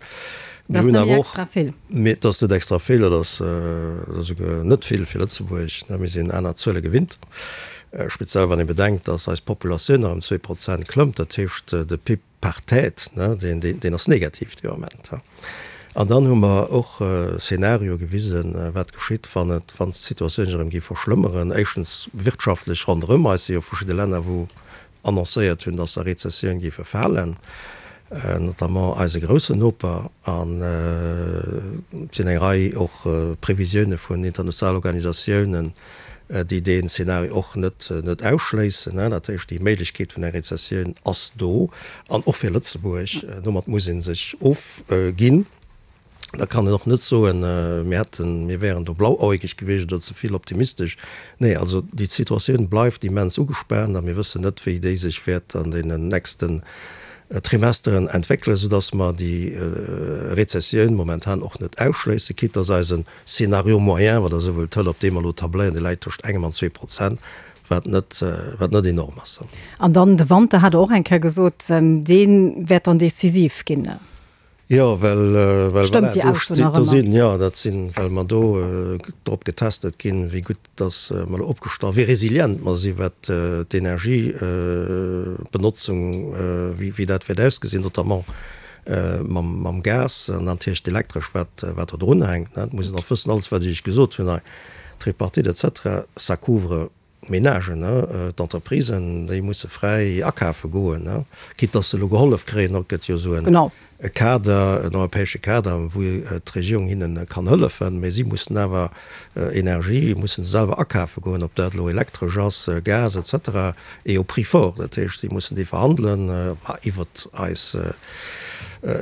Dat ass net méi extra vill. Mee et ass net extra vill, dat ass, dat ass esouguer net vill fir Lëtzebuerg, ne. Mir sinn aner Zuele gewinnt. Speziell wann ee bedenkt, dass eis Populatioun nach ëm 2% klëmmt, dat heescht de PIB par tête, deen ass negativ dee Moment. An dann hu mer och Szenarioe gewisen, wat geschitt, wann et, wann d'Situatioun sech erëm géif verschlëmmeren, éischtens wirtschaftlech ronderëm eis si jo verschidde Länner, wou annoncéiert hunn, dass se a Rezessioun géife falen, notamment eise groussen Noper, an et sinn eng Rei och Previsioune vun internationalen Organisatiounen, déi deen Szenario och net net ausschléissen. Dat heescht, déi Méiglechkeet vun enger Rezessioun ass do, an och fir Lëtzebuerg. Domat muss ee sech ofginn. Da kann een och net soen, mir hätten, mir wären do blauäugeg gewiescht oder ze vill optimistesch. Nee, also déi Situatioun bleift immens ugespaant a mir wëssen net, wéi déi sech wäert an deenen nächsten Trimesteren entwéckelen, soudass mer déi Rezessioun momentan och net ausschléissen, quitte dass eisen Scénario moyen, wann Der esou wëllt, hëlt, op deem mer elo tabléieren, dee läit tëscht engem an 2%, wat net, wat net enorm ass. An dann de Wanter, hat Der och eng Kéier gesot, dee wäert dann decisiv ginn. Jo, well, well voilà, do steet, do sinn, jo, dat sinn, well mer do drop getestet ginn, wéi gutt dass mer elo opgestallt, wéi resilient mer sinn, wat d'Energiebenotzung, wéi, wéi dat wäert ausgesinn, notamment mam, mam Gas an natierlech d'Elektresch, wat, wat do drunhänkt. Et muss een och wëssen, alles wat ech Iech gesot hunn hei, Tripartite et cetera, ça couvre D'Menagen, d'Entreprisen, déi musse fräi akafe goen, quitte dass se elo gehollef kréien. Et gëtt jo esou e Kader, en europäesche Kader, wou d'Regierung hinne kann hëllefen, mä si mussen awer Energie musse se selwer akafe goen, ob dat elo elektresch ass, Gas et cetera, et au prix fort. Dat heescht, si mussen déi verhandelen iwwert eis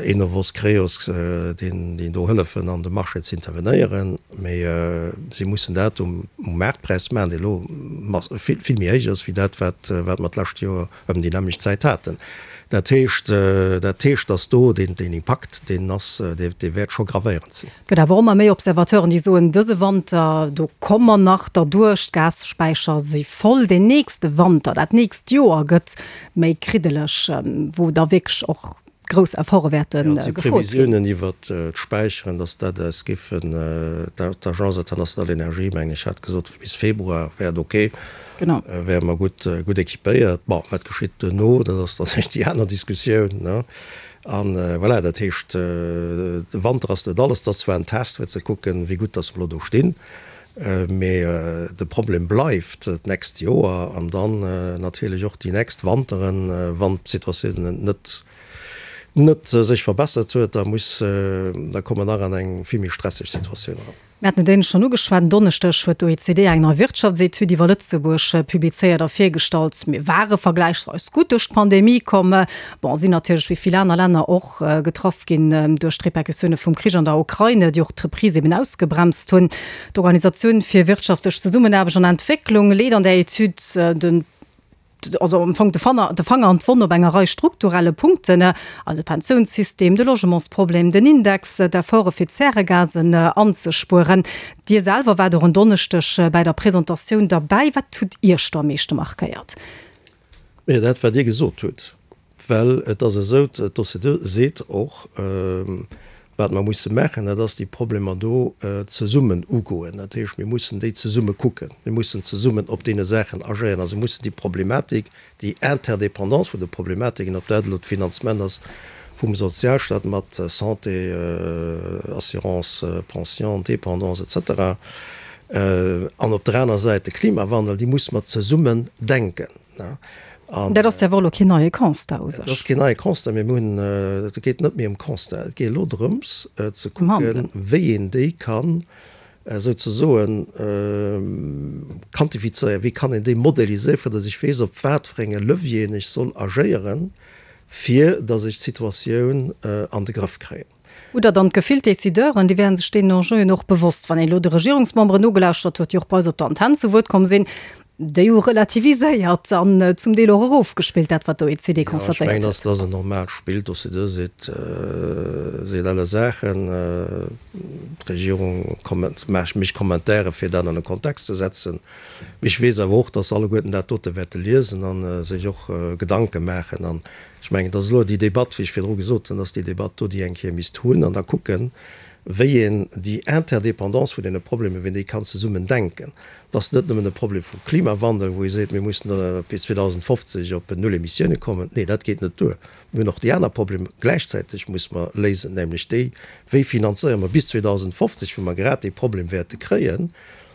Enovos, Creos, déi do hëllefen an de Marché ze intervenéieren. Mee si mussen dat um Maartpräis maachen, dee elo vill, vill méi héich ass wéi dat, wat, wat mer d'lescht Joer ëm déi nämmlecht Zäit haten. Dat heescht, dat heescht, datt do deen, deen Impakt, deen ass, dee, dee wäert scho gravéierend sinn. Et gëtt awer och ëmmer méi Observateuren, déi soen, dëse Wanter, do komme mer nach derduerch, d'Gasspäicher si voll. Deen nächste Wanter, dat nächst Joer gëtt méi kriddeleg, wou da wierklech och grouss Efforte wäerte gefrot ginn. Previsiounen iwwert d'Späicheren, datt dat eis géifen, d'Agence internationale d'énergie, mengen ech, hat gesot, bis Februar wär et ok, wäre mer gutt, gutt équipéiert. Bon, wat geschitt duerno, dat ass dann déi aner Diskussioun, ne. A voilà, dat heescht, de Wanter ass net alles, dat ass zwar en Test, fir ze kucken, wéi gutt datt mer elo do stinn, mee de Problem bleift d'nächst Joer an dann natierlech och déi nächst Wanteren, wann d'Situatioun net net sech verbessert huet, da muss, da komme mer nach an eng vill méi stresseg Situatioun eran. Mir haten et éinescht schonn ugeschwat, En Donneschdeg huet d'OECD eng nei Wirtschaftsetüd iwwer Lëtzebuerg publizéiert a virgestallt. Mir ware vergläichsweis gutt duerch d'Pandemie komm. Bon, sinn natierlech wéi vill aner Länner och getraff ginn duerch d'Repercussioune vum Krich an der Ukraine, déi och d'Reprise eben ausgebremst hunn. D'Organisatioun fir wirtschaftlech Zesummenaarbecht an Entwécklung leet an där Etüd den. also am Fong de Fanger, de Fanger an d'Wonn op enger Rei strukturelle Punkten, also Pensiounssystem, de Logementsproblem, den Index, d'Efforte fir d'Zäregasen anzespueren. Dir selwer waart och en Donneschdeg bäi der Presentatioun derbäi. Wat hutt Iech do am meeschte markéiert? Jo, dat wat Dir gesot hutt. Well et ass esou, d'OCDE seet och, wat mer musse maachen, dat ass déi Problemer do zesummen ugoen. Dat heescht, mir mussen déi zesumme kucken, mir mussen zesummen op deene Saachen agéieren. Also mussen déi Problematik, déi Interdépendance vun de Problematiken, ob dat elo d'Finanzement ass vum Sozialstaat mat Santé, Assurance, Pension, Dépendance et cetera, an op der aner Säit de Klimawandel, déi musse mer zesummen denken. An dat ass jo awer elo keen neie Constat u sech. Dat ass keen neie Constat, mee mir hunn, et geet net méi ëm Constat, et geet elo drëms ze kucken, wéi een déi kann souzesoen quantifizéieren, wéi kann een déi modeliséieren, fir datt ech weess, op wat fir enge Levieren ech soll agéieren, fir datt ech d'Situatioun an de Grëff kréien. Hutt Der dann d'Gefill, d'Decideuren, déi wären sech deenen Enjeuen och bewosst? Wann een elo de Regierungsmemberen nogelauschtert huet, déi och bei eis op der Antenn zu Wuert komm sinn, déi hu relativiséiert an zum Deel och erofgespillt, dat wat d'OECD Jo, ech constatéiert mengen, huet. dass dat ass en normaalt Spill. D'OCDE seet, seet alle Saachen. D'Regierung komment, mécht Commentairen, fir dat an e Kontext ze setzen. Mee ech weess awer och, dass se alleguerten dat dote wäerte liesen a sech och Gedanke maachen. An ech mengen, et ass elo déi Debatt, wéi ech virdru gesot hunn, dass déi Debatt do, déi eng Kéier misst hunn an da kucken, wéi een déi Interdépendance vun deene Problemer, wéi een déi kann zesummen denken. Et ass net nëmmen e Problem vum Klimawandel, wou ee seet, mir mussen bis 2050 op null Emissioune kommen. Nee, dat geet net duer. Mir hunn och déi aner Problemer gläichzäiteg musse mer léisen, nämlech déi, wéi finanzéiere mer bis 2050, wou mer grad dee Problem wäerte kréien,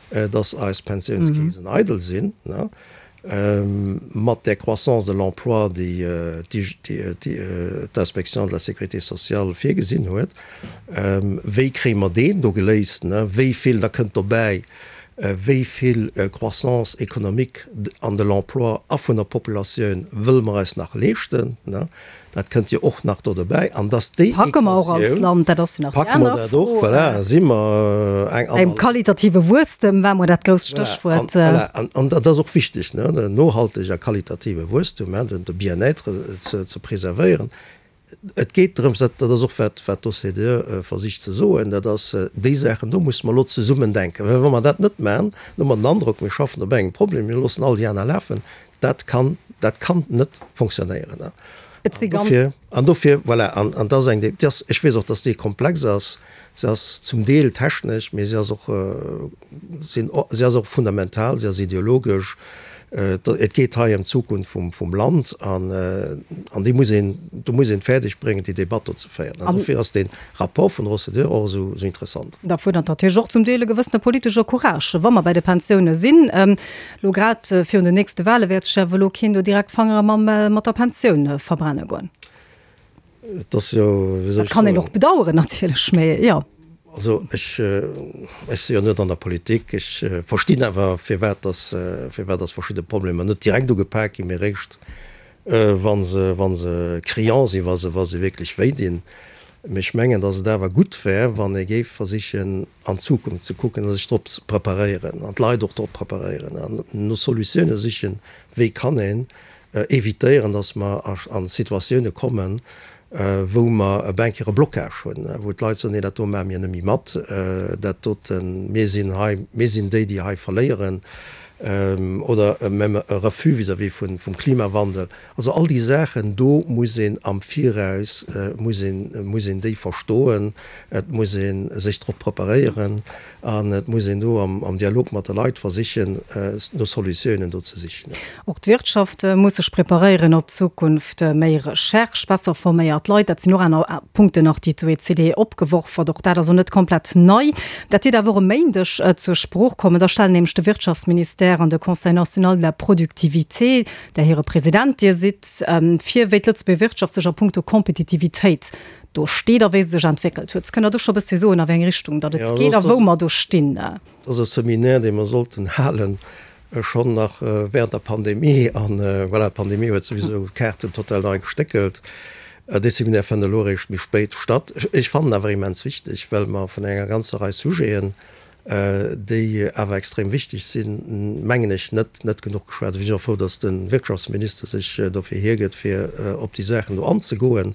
dass eis Pensiounskeesen eidel sinn, mat där Croissance de l'emploi, déi d'Inspection de la sécurité sociale virgesinn huet. Wéi kréie mer deen do geléist? Wéi vill, da kënnt dobäi, wéi vill Croissance économique an de l'emploi a vun der Populatioun wëlle mer eis nach leeschten? Dat kënnt jo och nach do dobäi. An dass déi Packe mer och als Equatioun, Land, dat ass jo nach déi packe mer aner dat och, Fro. voilà, si mer eng Beim aner. qualitative Wuesstem war mol dat grousst Voilà, an, Stéchwuert. voilà, an, an dat ass och wichteg, ne, den nohalteg a qualitative Wuesstum, hein, den, de Bien-être ze, ze preservéieren. Et geet drëms, dat, dat ass och wat, wat d'OCDE versicht ze soen, dat ass, déi Saachen do musse mer elo zesummen denken. Well wa mer dat net maachen, dann hu mer den Androck, mir schaffen op engem Problem, mir loossen all déi aner lafen. Dat kann, dat kann net fonctionnéieren. Et si An ganz. dofir, an dofir, voilà, an, an dat ass eng, déi ass, ech weess och, dass déi komplex ass, se ass zum Deel technesch, mee se ass och, sinn, se ass och fundamental, se ass ideologesch. Et geet hei ëm d'Zukunft vum, vum Land an, an déi muss een, do muss een et fäerdeg bréngen, déi Debatt do ze féieren. An dofir ass dee Rapport vun der OCDE och esou, esou interessant. Da fuerdert natierlech och zum Deel e gewëssene politesche Courage, wa mer bäi de Pensioune sinn. Lo grad virun den nächste Wahle wäert sech awer elo keen do direkt d'Fangere mam mat der Pensioun verbrenne goen. Et ass jo, wéi soll Dat ech kann een soen. och bedaueren natierlech, mee jo. Also ech, ech si jo net an der Politik, ech verstinn awer firwat dass, firwat dass verschidde Problemer net direkt ugepak ginn, mee eréischt wa se, wa se criant sinn, wa se, wa se wierklech wéi dinn. Mee ech mengen, dass et awer gutt wär, wann ee géif versichen, an d'Zukunft ze kucken a sech drop ze preparéieren an d'Leit och drop preparéieren an no Solutioune sichen, wéi kann een évitéieren, dass mer a Situatioune kommen, wou mer e bancaire Blocage hunn, wou d'Leit soen, nee, dat do maache mir net méi mat, dat doten, mir sinn hei, mir sinn déi, déi hei verléieren, oder même e Refus vis-à-vis vum Klimawandel. Also all déi Saachen do muss een am Viraus, muss een, muss een déi verstoen, et muss ee sech drop preparéieren an et muss een do am Dialog mat de Leit versichen, no Solutiounen do ze sichen. Och d'Wirtschaft muss sech preparéieren op d'Zukunft. Méi Recherche, besser forméiert Leit, dat sinn och aner Punkten nach, déi d'OECD opgeworf huet. Och dat ass och net komplett nei. Dat dierft awer och e Méindeg zur Sprooch kommen. Da stellen nämlech de Wirtschaftsministère an de Conseil national de la productivité, där hire President Dir sidd, vir, wéi d'Lëtzebuerger Wirtschaft sech a puncto Kompetitivitéit do steet a wéi se sech entwéckelt huet. Kënnt Der do scho e bëssi soen, a wéi eng Richtung datt et geet a wou mer do stinn? Dat ass e Seminaire, dee mer sollten halen, schonn nach während der Pandemie. An voilà, d'Pandemie huet souwisou d'Kaarten total nei gestéckelt. Dee Seminaire fënnt elo eréischt méi spéit statt. Ech fannen awer immens wichteg, well mer vun enger ganzer Rei Sujeten. déi awer extrem wichteg sinn, mengen ech, net net genuch geschwat. Ech sinn och frou, datt de Wirtschaftsminister sech dofir hiergëtt, fir op déi Saachen do anzegoen.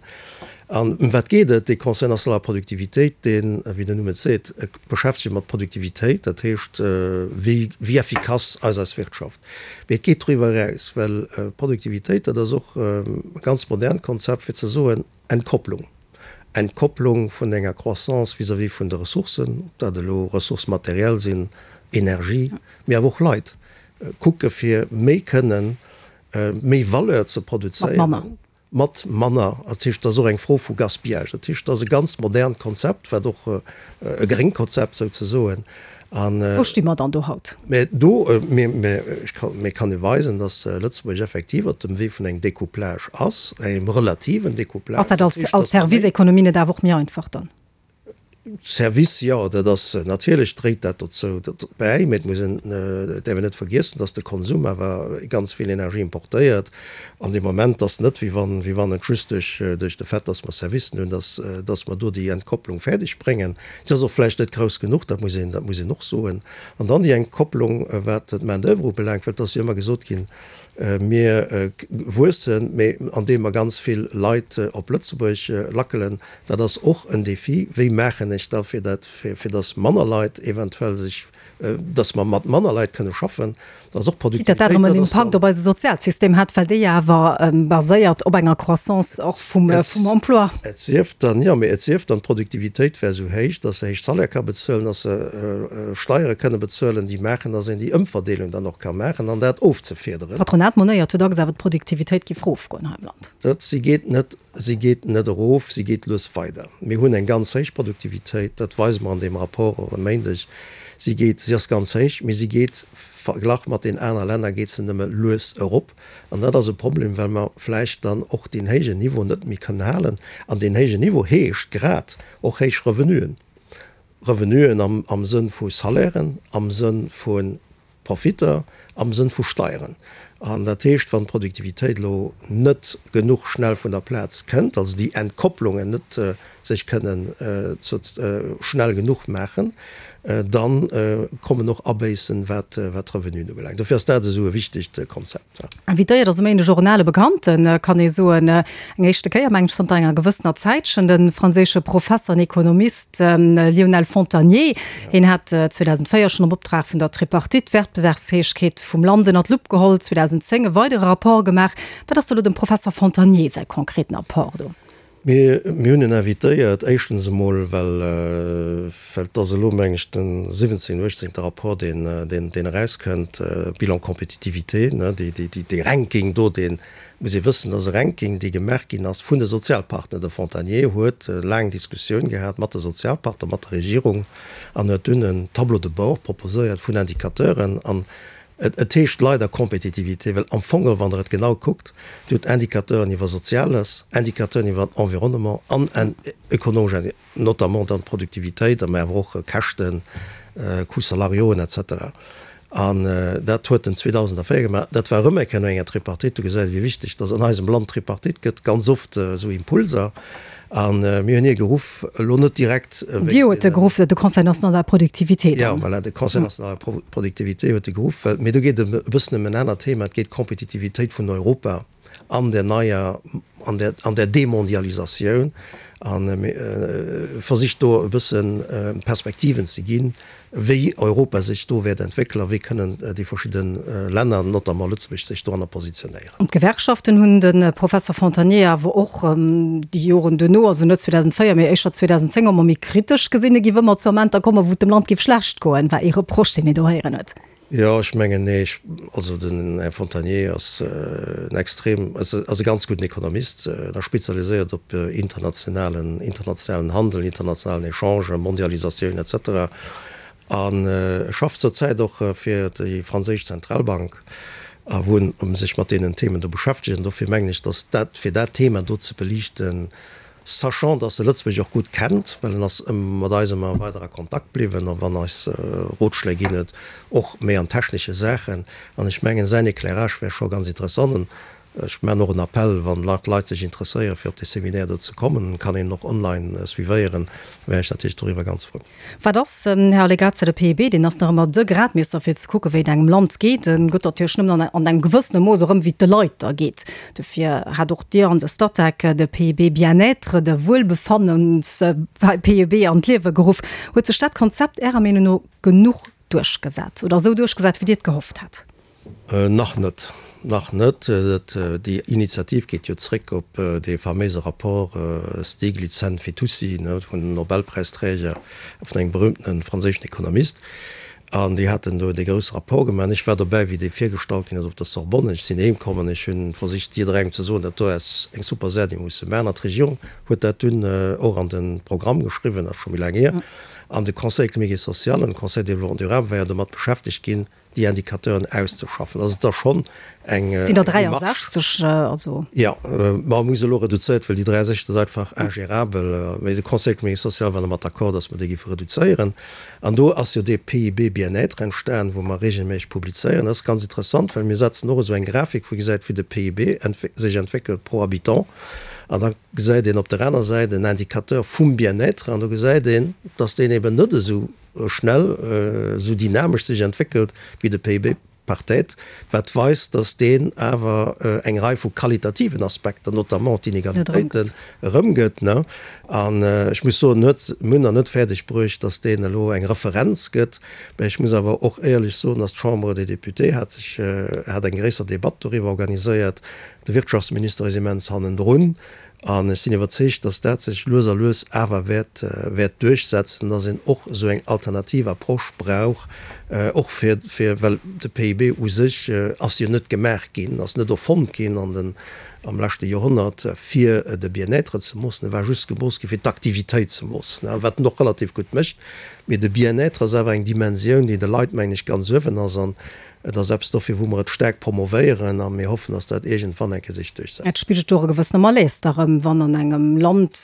An ëm wat geet et? Dee Conseil national de la productivité, deen, wéi den Numm et seet, beschäftegt sech mat Produktivitéit, dat heescht, wéi wéi effikass ass eis Wirtschaft. Mee et geet doriwwer eraus, well Produktivitéit, dat ass och e ganz modernt Konzept, fir ze soen, Entkopplung. Entkopplung vun enger Croissance vis-à-vis vun de Ressourcen, ob dat elo Ressources matérielles sinn, Energie, mee awer och Leit, kucke fir méi kënnen, méi Valeur ze produzéieren. Mat manner. Dat heescht, et ass och eng Fro vu Gaspillage. Dat heescht, et ass e ganz modernt Konzept, wat och e gréngt Konzept souzesoen. An. Wou sti mer dann do haut? Mä do, mä ech kann, mä kann ee weisen, datt Lëtzebuerg effektiv op dem Wee vun engem Découplage ass, engem relativen Découplage. Ass dat als, als Service-Ekonomie net awer och méi einfach dann? Service, jo, dat ass natierlech dréit dat dozou bäi, mä et muss een, et däerf een net vergiessen, datt de Konsum awer ganz vill Energie importéiert. An dee Moment ass net, wéi wann, wéi wann et just duerch, duerch de Fait, datt mer Servicen hunn, datt, datt mer do déi Entkopplung fäerdeg bréngen. Se ass och vläicht net grouss genuch, dat muss een, dat muss een och soen. An dann déi Entkopplung, wat d'Main-d'oeuvre ubelaangt, well et ass jo ëmmer gesot ginn, Mir wuessen, mee andeem mer ganz vill Leit op Lëtzebuerg lackelen. Dat ass och en Défi. Wéi maachen ech da fir dat, fir datt manner Leit eventuell sech, datt mer mat manner Leit kënne schaffen? Dat ass och Quitte datt dat erëm en Impakt op eise Sozialsystem hätt, well dee jo awer baséiert op enger Croissance och vum Emploi. Et sief dann, jo, mee et sief dann, d'Produktivitéit wär esou héich, datt se héich Salaire ka bezuelen, datt se Steiere kënne bezuelen, déi maachen, datt een déi Ëmverdeelung dann och ka maachen an dat ofzefiederen. D'Patronat monéiert jo dacks awer, d'Produktivitéit géif erofgoen hei am Land. Dat, si geet net, si geet net erof, si geet lues weider. Mir hunn eng ganz héich Produktivitéit, dat weise mer an deem Rapport och e Méindeg. Si geet, si ass ganz héich, mee si geet, verglach mat den aner Länner, geet se nëmme lues erop. An dat ass e Problem, well mer vläicht dann och deen héijen Niveau net méi kënnen halen. An deen héijen Niveau heescht grad och héich Revenuen. Revenuen am Sënn vu Salairen, am Sënn vu Profitter, am Sënn vu Steieren. An dat heescht, wann d'Produktivitéit elo net genuch schnell vun der Plaz kënnt, also déi Entkopplungen net sech kënnen schnell genuch maachen, da kommen och Abéissen, wat d'Revenuen ubelaangt. Dofir ass dat esou e wichtegt Konzept. Invitéiert ass um Méindeg och en ale Bekannten, kann ee soen. Eng éischte Kéier, mengen ech, zanter enger gewëssener Zäitchen, de franséische Professer an Ekonomist Lionel Fontagné. Hien hat 2004 schonn am Optrag vun der Tripartite d'Wettbewerbsfäegkeet vum Land ënner d'Lupp geholl, 2010 e weidere Rapport gemaach. Wat ass da lo dem Professer Fontagné säi konkreten Apport do? Mir hunn en invitéiert, éischtens emol, well et ass elo, meng ech, de siwwenzéngten, uechtzéngte Rapport, deen erauskënnt, Bilan compétitivité, dee Ranking do, dee muss ee wëssen, dat ass e Ranking, dee gemaach ginn ass vun de Sozialpartner. De Fontagné huet laang Diskussioun gehat mat de Sozialpartner, mat der Regierung an huet dunn en Tableau de bord proposéiert vun Indicateuren. An Et heescht leider Compétitivité, well am Fong geholl, wann Der et genau kuckt, Dir hutt Indicateuren iwwer Soziales, Indicateuren iwwer Environnement an ökonomesch, notamment dann d'Produktivitéit, mä awer och Käschten, Coûts salariaux et cetera. An dat huet en 2004 gemaach. Dat war erëm eng Kéier no enger Tripartite. Do gesäit ee wéi wichteg dass an eisem Land d'Tripartite gëtt, ganz oft esou Impulser. A mir hunn hie geruff, elo net direkt wéinst Dir hutt e geruff, de Conseil national de la productivité dann? Jo, voilà, de Conseil national de la productivité huet e geruff, well, mee do geet et e bëssen ëm en anert Thema, et geet d'Kompetitivitéit vun Europa an der neier, an der, an der Demondialisatioun a versicht do e bësse Perspektiven ze ginn, wéi Europa sech do wäert entwéckelen a wéi kënnen déi verschidde Länner, notamment Lëtzebuerg, sech doranner positionéieren. An d'Gewerkschaften hunn de Professer Fontagné awer och déi Joren duerno, also net 2004, mee éischter 2010, ëmmer méi kritesch gesinn. Et géif ëmmer zu Amenter kommen, wou et dem Land géif schlecht goen, war ee Reproche, deen een do héieren huet. Jo, ech mengen, nee, ech, also den Här Fontagné ass en extrem, ass e ganz gudden Ekonomist, en ass spezialiséiert op internationalen, internationalen Handel, internationalen Echange, Mondialisatioun et cetera an e schafft zur Zäit och fir déi franséisch Zentralbank a wou en sech mat deenen Themen do beschäftegt. An dofir mengen ech, datt dat, fir dat Thema do ze beliichten, Sachant, dass e Lëtzebuerg och gutt kennt, well en ass mat eis ëmmer weider a Kontakt bliwwen a wann eis Rotschléi ginn huet, och méi an technesche Saachen. An ech mengen, säin Éclairage wär scho ganz interessant. Ech maachen och en Appell, wann Leit sech interesséieren, fir op dee Seminaire do ze kommen, kann een och online suivéieren, wär ech natierlech doriwwer ganz frou. Wat ass, Här Allegrezza, de PIB? Deen ass nach ëmmer de Gradmiesser fir ze kucken, wéi et engem Land geet. En gëtt natierlech nëmmen an engem gewëssene Mooss erëm, wéi et de Leit da geet. Dofir hat och Dir an de Statec de PIB Bien-être, de Wuelbefannens-PIB an d'Liewe geruff. Huet sech dat Konzept Ärer Meenung no genuch duerchgesat oder esou duerchgesat, wéi Dir et gehofft hat? Nach net, nach net. Déi Initiativ geet jo zréck op dee faméise Rapport Stiglitz-Sen-Fitoussi vun den Nobelpräisträger, vun engem berühmtene franséischen Ekonomist. An déi haten do dee grousse Rapport gemaach. An ech war dobäi, wéi dee virgestallt ginn ass op der Sorbonne. Ech sinn heem komm an ech hu versicht, jidderengem ze soen, dat do ass eng super Saach, déi musse maachen. An d'Regierung huet dat dunn och an de Programm geschriwwen, dat ass scho méi laang hier. An de Conseil économique et social an de Conseil de développement durable war jo domat beschäftegt ginn, déi Indicateuren auszeschaffen. Also et ass schonn eng Sinn der Démarche. 63, also. Jo, ma hu se elo reduzéiert, well déi 63 ass einfach ingérabel. Mee de Conseil économique et social war domat d'accord, datt mer déi géife reduzéieren. An do ass jo dee PIB Bien-être entstan, wou mer regelméisseg publizéieren. Dat ass ganz interessant, well mir setzen och esou eng Grafik, wou ee gesäit, wéi de PIB sech entwéckelt pro Habitant. An da gesäit een op der aner Säit en Indicateur vum Bien-être an do gesäit een, datt deen eben net esou schnell, esou dynamesch sech entwéckelt wéi de PIB par tête, wat weist, datt deen awer eng Rei vu qualitativen Aspekter, notamment d'Inegalitéiten, erëmgëtt. An ech muss soen, huet, mir hunn nach net fäerdeg bruecht, datt deen elo eng Referenz gëtt. Mä ech muss awer och éierlech soen, datt d'Chambre des Députés hat sech, hat eng gréisser Debatt doriwwer organiséiert. De Wirtschaftsminister ass immens hannendrun. An ech sinn iwwerzeegt, dass dat sech lues a lues awer wäert, wäert duerchsetzen, dass een och esou eng alternativ Approche brauch, och fir, fir, well de PIB u sech ass jo net gemaach ginn, ass net erfonnt ginn an den, am leschte Joerhonnert, fir de Bien-être ze moossen. E war just gemooss gi fir d'Aktivitéit ze moossen, wat en och relativ gutt mécht. Mee de Bien-être ass awer eng Dimensioun, déi de Leit, mengen ech, ganz uewen ass. An Et ass eppes dofir, wou mer et staark promovéieren a mir hoffen, dass dat iergendwann eng Kéier sech duerchsetzt. Et spigelt och e gewëssene Malaise da rëm, wann an engem Land,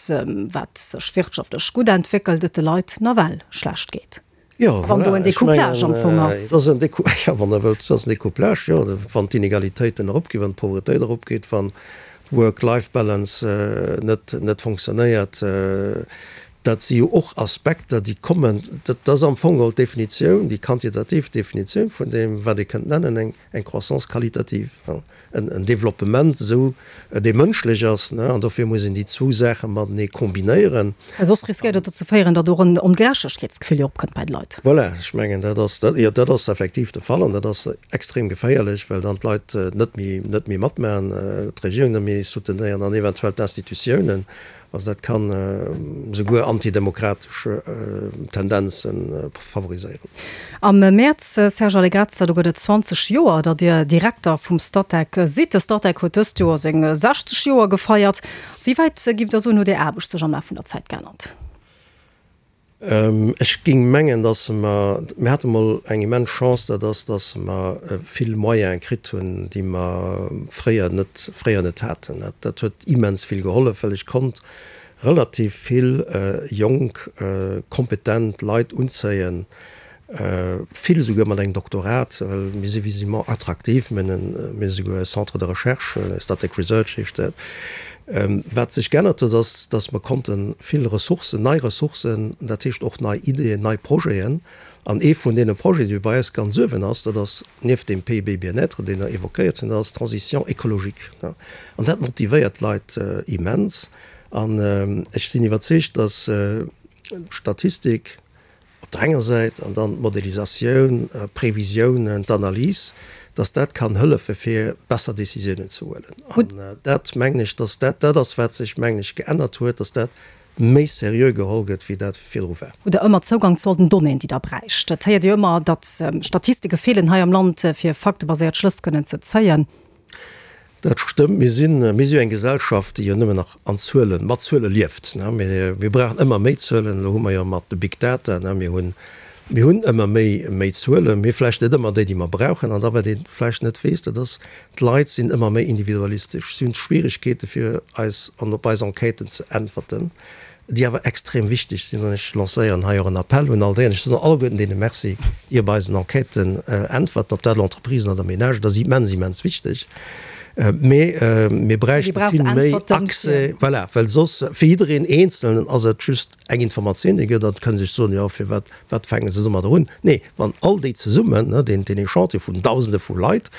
wat sech wirtschaftlech gutt entwéckelt, et de Leit nawell schlecht geet. Jo, Wann do voilà, en ech Decouplage am mengen, Fong ass. et ass en Décou, jo, wann Der wëllt, et ass en Decouplage, jo, wann d'Inegalitéiten eropginn, wann d'Pauvretéit eropgeet, wann d'Work-Life-Balance net, net fonctionnéiert, Dat si jo och Aspekter, déi kommen. Dat ass am Fong geholl d'Definitioun, déi quantitativ Definitioun vun deem, wat ee kënnt nennen eng eng Croissance qualitative, en Développement esou, dee mënschlech ass. An dofir muss een déi zwou Saache matenee kombinéieren. Well soss riskéiert et dozou féieren, datt och en Ongerechtegkeetsgefill jo opkënnt bei de Leit. Voilà, ech mengen, dat ass, jo, dat ass effektiv de Fall an dat ass extrem geféierlech, well dann d'Leit net méi, net méi matmaachen, d'Regierung net méi soutenéieren an eventuell d'Institutiounen. Also dat kann esouguer antidemokratesch Tendenze favoriséieren. Am Mäerz, Serge Allegrezza, do gëtt et 20 Joer, datt Dir Direkter vum Statec sidd. De Statec huet dëst Joer seng 60 Joer gefeiert. Wéi wäit, giff Der soen, huet Är Aarbecht sech am Laf vun der Zäit geännert? Ech géing mengen, datt mer, mir hate mol eng immens Chance, dat ass, datt mer vill Moyene kritt hunn, déi mer fréier net, fréier net haten. Dat, dat huet immens vill gehollef, well ech konnt relativ vill jonk, kompetent Leit unzéien, Vill esouguer mat engem Doktorat, well mir si visiblement attraktiv. Mir hunn esouguer e Centre de recherche, Statec Research heescht dat. Wat sech geännert huet, ass, datt mer konnte vill Ressourcen, nei Ressourcen, dat heescht och nei Ideeën, nei Projeten, an ee vun deene Projeten, dee bei eis ganz uewen ass, dat ass nieft deem PIB Bien-être, deen Der évoquéiert hutt, dat ass d'Transition écologique. An dat motivéiert d'Leit immens. An ech sinn iwwerzeegt, datt d'Statistik, op der enger Säit, an dann d'Modelisatioun, d'Previsiounen, d'Analys, dass dat kann hëllefe fir besser Décisiounen ze huelen. An dat mengen ech, dass dat dat ass, wat sech, mengen ech, geännert huet, dass dat méi seriö geholl gëtt, wéi dat virdru war. Hutt Der ëmmer Zougang zu all den Donnéeën, déi Der bräicht? Et héiert ee jo ëmmer, datt Statistike feelen hei am Land, fir faktebaséiert Schlëss kënnen ze zéien. Dat stëmmt. Mir sinn, mir si jo eng Gesellschaft, déi jo nëmmen nach an Zuelen, mat Zuele lieft. Mir, mir brauchen ëmmer méi Zuelen. Elo hu mer jo mat de Big Data, mir hunn, mir hunn ëmmer méi, méi Zuelen, mee vläicht net ëmmer déi, déi mer brauchen. An da wat ee vläicht net weess, dat ass, d'Leit sinn ëmmer méi individualistesch. Si hunn Schwierigkeete fir eis an op eis Enquêten ze äntwerten. déi awer extrem wichteg sinn, an ech lancéieren hei och en Appell un all déi, an ech soen alleguerten deene Merci, déi op eisen Enquêten äntwerten, ob dat elo Entreprisen oder Ménagen, dat ass immens, immens wichteg. Mee mir bräichte vill méi Accès, voilà, well soss fir jiddereen Eenzelnen ass et just eng Informatioun, déi gëtt, an et kënne sech soen, jo firwat, wat fänke se domadder un? Nee, wann all déi zesummen, deen Echantillon vun Dausende vu Leit,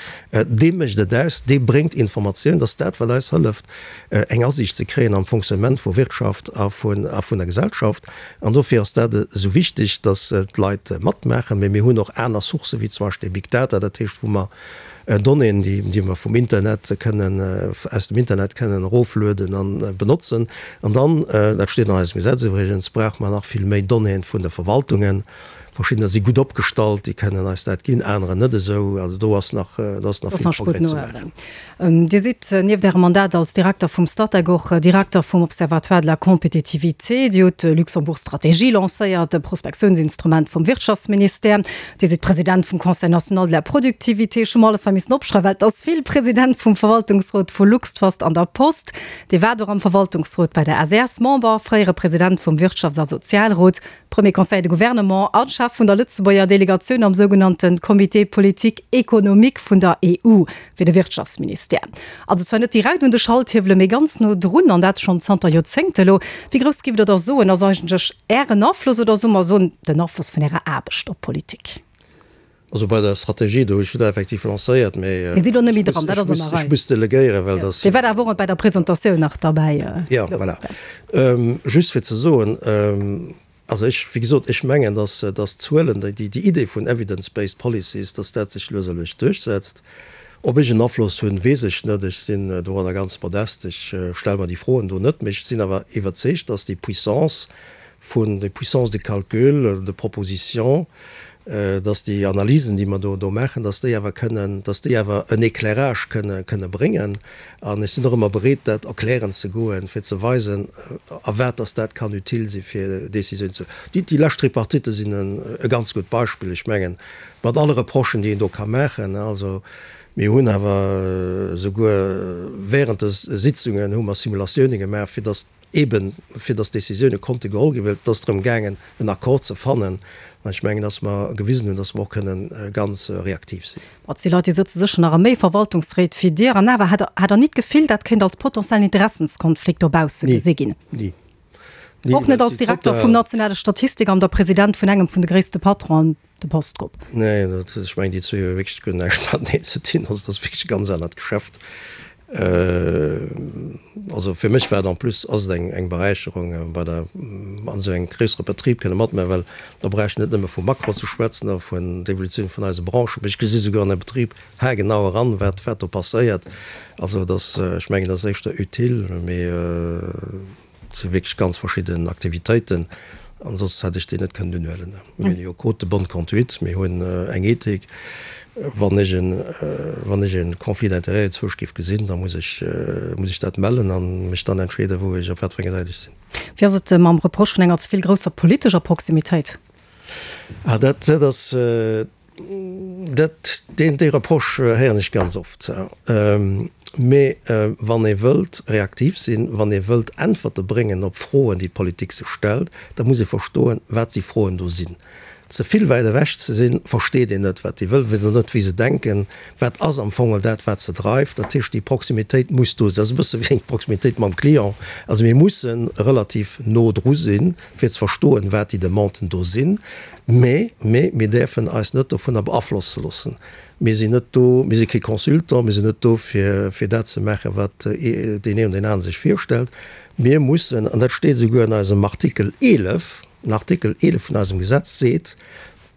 dee mécht et aus, dee bréngt Informatioun, dass dat wat eis hëlleft, eng Asiicht ze kréien am Fonctionnement vu Wirtschaft a vun der Gesellschaft. An dofir ass dat esou wichteg, dass d'Leit matmaachen. Mee mir hunn och aner Sourcë wéi zum Beispill Big Data, dat heescht wou mer Donnéeën, déi mer vum Internet kënnen, aus dem Internet kënnen eroflueden a benotzen. An dann, dat steet an eisem Gesetz iwwregens, brauche mer nach vill méi Donnéeën vun de Verwaltungen. Verschiddener si gutt opgestallt, déi kënnen eis dat ginn, anerer net esou. Also do ass nach, do ass nach vill Progrès ze maachen. Dir sidd nieft Ärem Mandat als Direkter vum Statec och Direkter vum Observatoire de la compétitivité. Dir hutt d'Luxembourg Stratégie lancéiert, e Prospektiounsinstrument vum Wirtschaftsministère. Dir sidd President vum Conseil national de la productivité. Ech hu mer alles hei missen opschreiwen, well et ass vill. President vum Verwaltungsrot vu Luxtrust an der Post. Dir waart och am Verwaltungsrot bei der SES, Member, fréiere President vum Wirtschafts a Sozialrot, Premier Conseiller de Gouvernement a Chef vun der Lëtzebuerger Delegatioun am sougenannte Comité politique économique vun der EU fir de Wirtschaftsministère. Also zwar net direkt un de Schalthiewele, mee ganz no drun, an dat schonn zanter Joerzéngte elo. Wéi grouss giff Der da soen, ass eigentlech Ären Afloss, oder soe mer soen, den Afloss vun Ärer Aarbecht op d'Politik? Also bei der Strategie do, ech hunn dat effektiv lancéiert, mee Dir sidd och net méi dran, dat ass an der Rei. Ech muss delegéieren, well dass. Dir waart awer och bei der Presentatioun nach derbäi. Jo, voilà. Just fir ze soen, also ech, wéi gesot, ech mengen, dass, dass d'Zuelen, déi, déi Idee vun evidence-based policies, dass dat sech lues a lues duerchsetzt. Ob ech en Afloss hunn, weess ech net. Ech sinn doranner ganz modest. Ech stelle mer déi Froen do net. Mee ech sinn awer iwwerzeegt, dass déi Puissance vun, déi Puissance de calcul, de proposition, dass déi Analysen, déi mer do do maachen, dass déi awer kënnen, dass déi awer en Éclairage kënne, kënne bréngen. An ech sinn och ëmmer bereet, dat erklären ze goen, fir ze weisen, a wat dass dat kann utile si fir Décisionen ze. Déi, déi lescht Tripartite sinn en e ganz gutt Beispill. Ech mengen, mat alle Reprochen, déi een do ka maachen, also mir hunn awer souguer während de Sitzungen hu mer Simulatiounen gemaach, fir dass, Eben fir datt Décisioune konnte geholl ginn, well et ass drëm gaangen, en Accord ze fannen. An ech mengen, datt mer gewisen hunn, datt mer och kënnen ganz reaktiv sinn. Ma et si Leit, déi sëtze sécher nach a méi Verwaltungsréit wéi Dir. An awer, hat Der ni d'Gefill, dat kéint als potentiellen Interessenskonflikt dobausse gesi ginn? Ni. Ni. Och net als Direkter vum nationale Statistikamt a President vun engem vun de gréisste Patronen, de Postgrupp? Nee, dat, ech mengen, déi zwee hu wierklech guer näischt mateneen ze dinn. Also, dat ass wierklech e ganz anert Geschäft. Also fir mech war et en plus, ass et eng, eng Beräicherung, bei der, an esou engem gréissere Betrib kënne matmaachen, well da brauch ech net nëmme vu Makro ze schwätzen a vun der Evolutioun vun eise Branchen, mee ech gesi souguer an e Betrib haargenau eran, wat, wat do passéiert. Also et ass, ech mengen, et ass éischter utile, mee. Et si wierklech ganz verschidden Aktivitéiten, an soss hätt ech déi net kënnen unhuelen. Mir hunn jo Code de bonne conduite, mir hunn eng Ethik. Wann ech en, wann ech e Conflit d'intérêts zwousch géif gesinn, da muss ech, muss ech dat mellen a mech dann entscheeden, wou ech, op wat fir enger Säit ech sinn. Wéi ass et mam Reproche vun enger ze vill grousser politescher Proximitéit? Ah, dat, dat ass, Dat, deen, dee Reproche héieren ech ganz oft. Mee wann ee wëllt reaktiv sinn, wann ee wëllt Äntwerte bréngen op Froen, déi d'Politik sech stellt, da muss ee verstoen, wat déi Froen do sinn. Ze vill wäit ewech ze sinn, versteet een net, wat déi wëllen, weess net, wéi se denken, wat ass am Fong dat, wat se dreift. Dat heescht, déi Proximitéit muss do sinn. Dat ass e bësse wéi eng Proximitéit mam Client. Also mir musse relativ no dru sinn, fir ze verstoen, wat déi Demanden do sinn. Mä, mä mir däerfen eis net dovunner beaflosse loossen. Mir sinn net do, mir si kee Consultant, mir sinn net do, fir, fir dat ze maachen, wat deen een oder deen anere sech virstellt. Mir mussen, an dat steet esouguer an eisem Artikel 11, den Artikel 11 vun eisem Gesetz seet,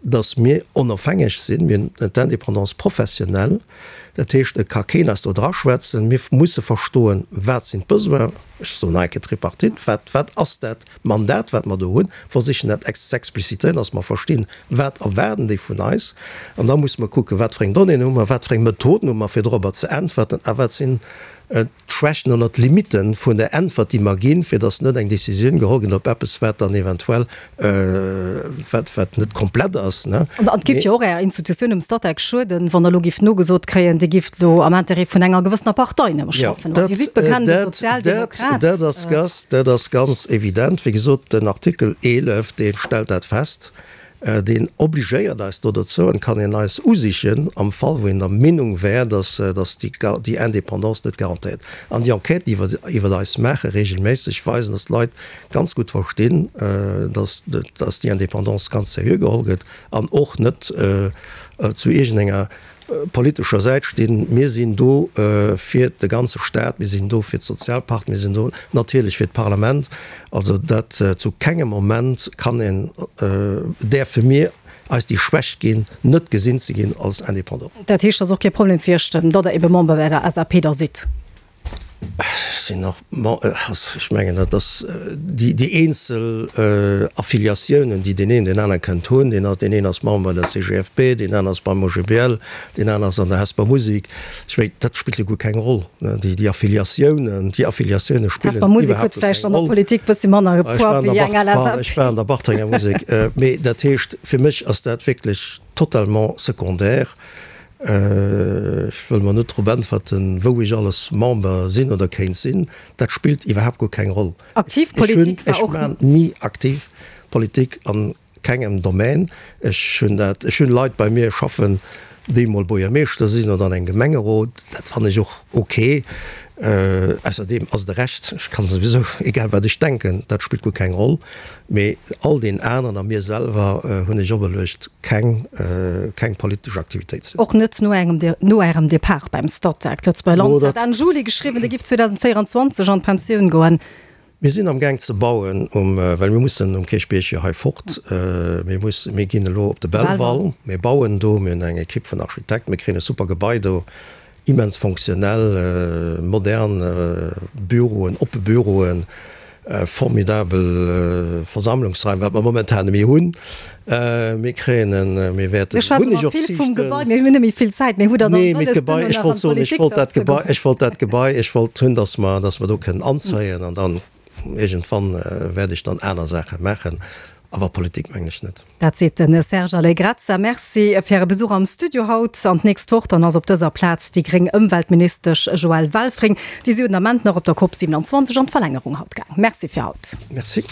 dass mir onofhängeg sinn, mir hunn d'Indépendance professionnelle, dat heescht, et ka keen eis do draschwätzen. Mir musse verstoen, wat sinn d'Besoinen, ech soen nach eng Kéier Tripartite, wat, wat ass dat Mandat, wat mer do hunn, versichen dat z'explicitéieren, dass mer verstinn, wat erwaarden déi vun eis. An da musse mer kucken, wat fir eng Donnéeën hu mer, wat fir eng Methoden hu mer, fir dorobber ze äntwerten a wat sinn d'Schwächten oder d'Limite vun der Äntwert, déi mer ginn, fir dass net eng Décisioun geholl gëtt op eppes, wat dann eventuell, wat, wat net komplett ass. An et géif jo och Ärer Institutioun, dem Statec, schueden, wann Der elo gifft nogesot kréien, Dir gifft elo am Intérêt vun enger gewëssener Partei nëmme schaffen. Well Dir sidd bekennende Sozialdemokrat. Dat ass ganz, dat ass ganz evident. Wéi gesot, den Artikel 11, dee stellt dat fest. Deen obligéiert eis do dozou an kann een eis usichen am Fall wou een der Meenung wär, dass déi Indépendance net garantéiert. An déi Enquêten, déi wir iwwert eis maache regelméisseg, weisen, dass d'Leit ganz gutt verstinn, dass déi Indépendance ganz seriö geholl gëtt an och net zu iergendenger politescher Säit stinn. Mir sinn do fir de ganze Staat, mir sinn do fir d'Sozialpartner, mir sinn do natierlech fir d'Parlament. Also dat zu kengem Moment kann een, däerfe mir eis déi Schwächt ginn, net gesinn ze ginn als Indépendant. Dat heescht, et ass och kee Problem fir Iech, datt Der ebe Member bei der SAP da sidd? Sinn och, ech mengen dat ass déi eenzel Affiliatiounen, déi deen een deen anere kënnt hunn. Deen deen een ass Member bei der CGFP, deen aner ass beim OGBL, deen aner ass an der Hesper Musik. Ech mengen, dat spillt jo guer keng Roll, déi Affiliatiounen, déi Affiliatioune spillen Hesper Musik huet vläicht an der Politik bëssi manner Poids wéi eng LSAP. Ech war an der Bartrenger Musek. Mee dat heescht, fir mech ass dat wierklech totalement secondaire. Ech wëll mer net drop äntwerten, wou ech alles Member sinn oder kéint sinn. Dat spillt iwwerhaapt guer keng Roll. Aktiv Politik war och. Ech maan ni aktiv Politik an kengem Domaine. Ech hunn dat, ech hunn Leit bei mir schaffen, déi mol Buergermeeschter sinn oder an engem Gemengerot. Dat fannen ech och ok. Ausserdeem ass et e Recht, ech kann souwisou, egal wat ech denken, dat spillt guer keng Roll. Mee all deen aneren a mir selwer hunn ech operluecht, keng, keng politesch Aktivitéit ze hunn. Och net no engem, no Ärem Depart beim Statec. D'Lëtzebuerger Land hat Enn Juli geschriwwen, Dir giff 2024 an d'Pensioun goen. Mir sinn am Gaang ze bauen um, well mir mussen um Kierchbierg jo hei fort. Mir mussen, mir ginn elo op de Belval, mir bauen do, mir hunn eng Ekipp vun Architekten, mir kréien e super Gebai do. Immens fonctionnel, modern Büroen, oppe Büroen, formidabel Versammlungsraim, wat mer momentan net méi hunn. Mir kréien en, mir wäerten, Mir schwätzen hunn ech ëmmer och vill vum Ziichten. Gebai, mir hunn net méi vill Zäit, mee hutt Der dann Nee, mee wëlles, d'Gebai, duerno ech nach wollt an soen, ech d'Politik wollt dann dat ze Gebai, goen? ech wollt dat Gebai, ech wollt hunn, dass mer, dass mer do kënnen anzéien an dann iergendwann wäert ech dann aner Saache maachen, awer Politik mengen ech net. Dat seet de Serge Allegrezza. Merci fir Äre Besuch am Studio haut. An d'nächst Woch dann ass op dëser Plaz déi gréng Ëmweltministesch Joëlle Welfring. Déi si jo den Ament nach op der Cop 27 an d'Verlängerung haut gaang. Merci fir haut. Merci.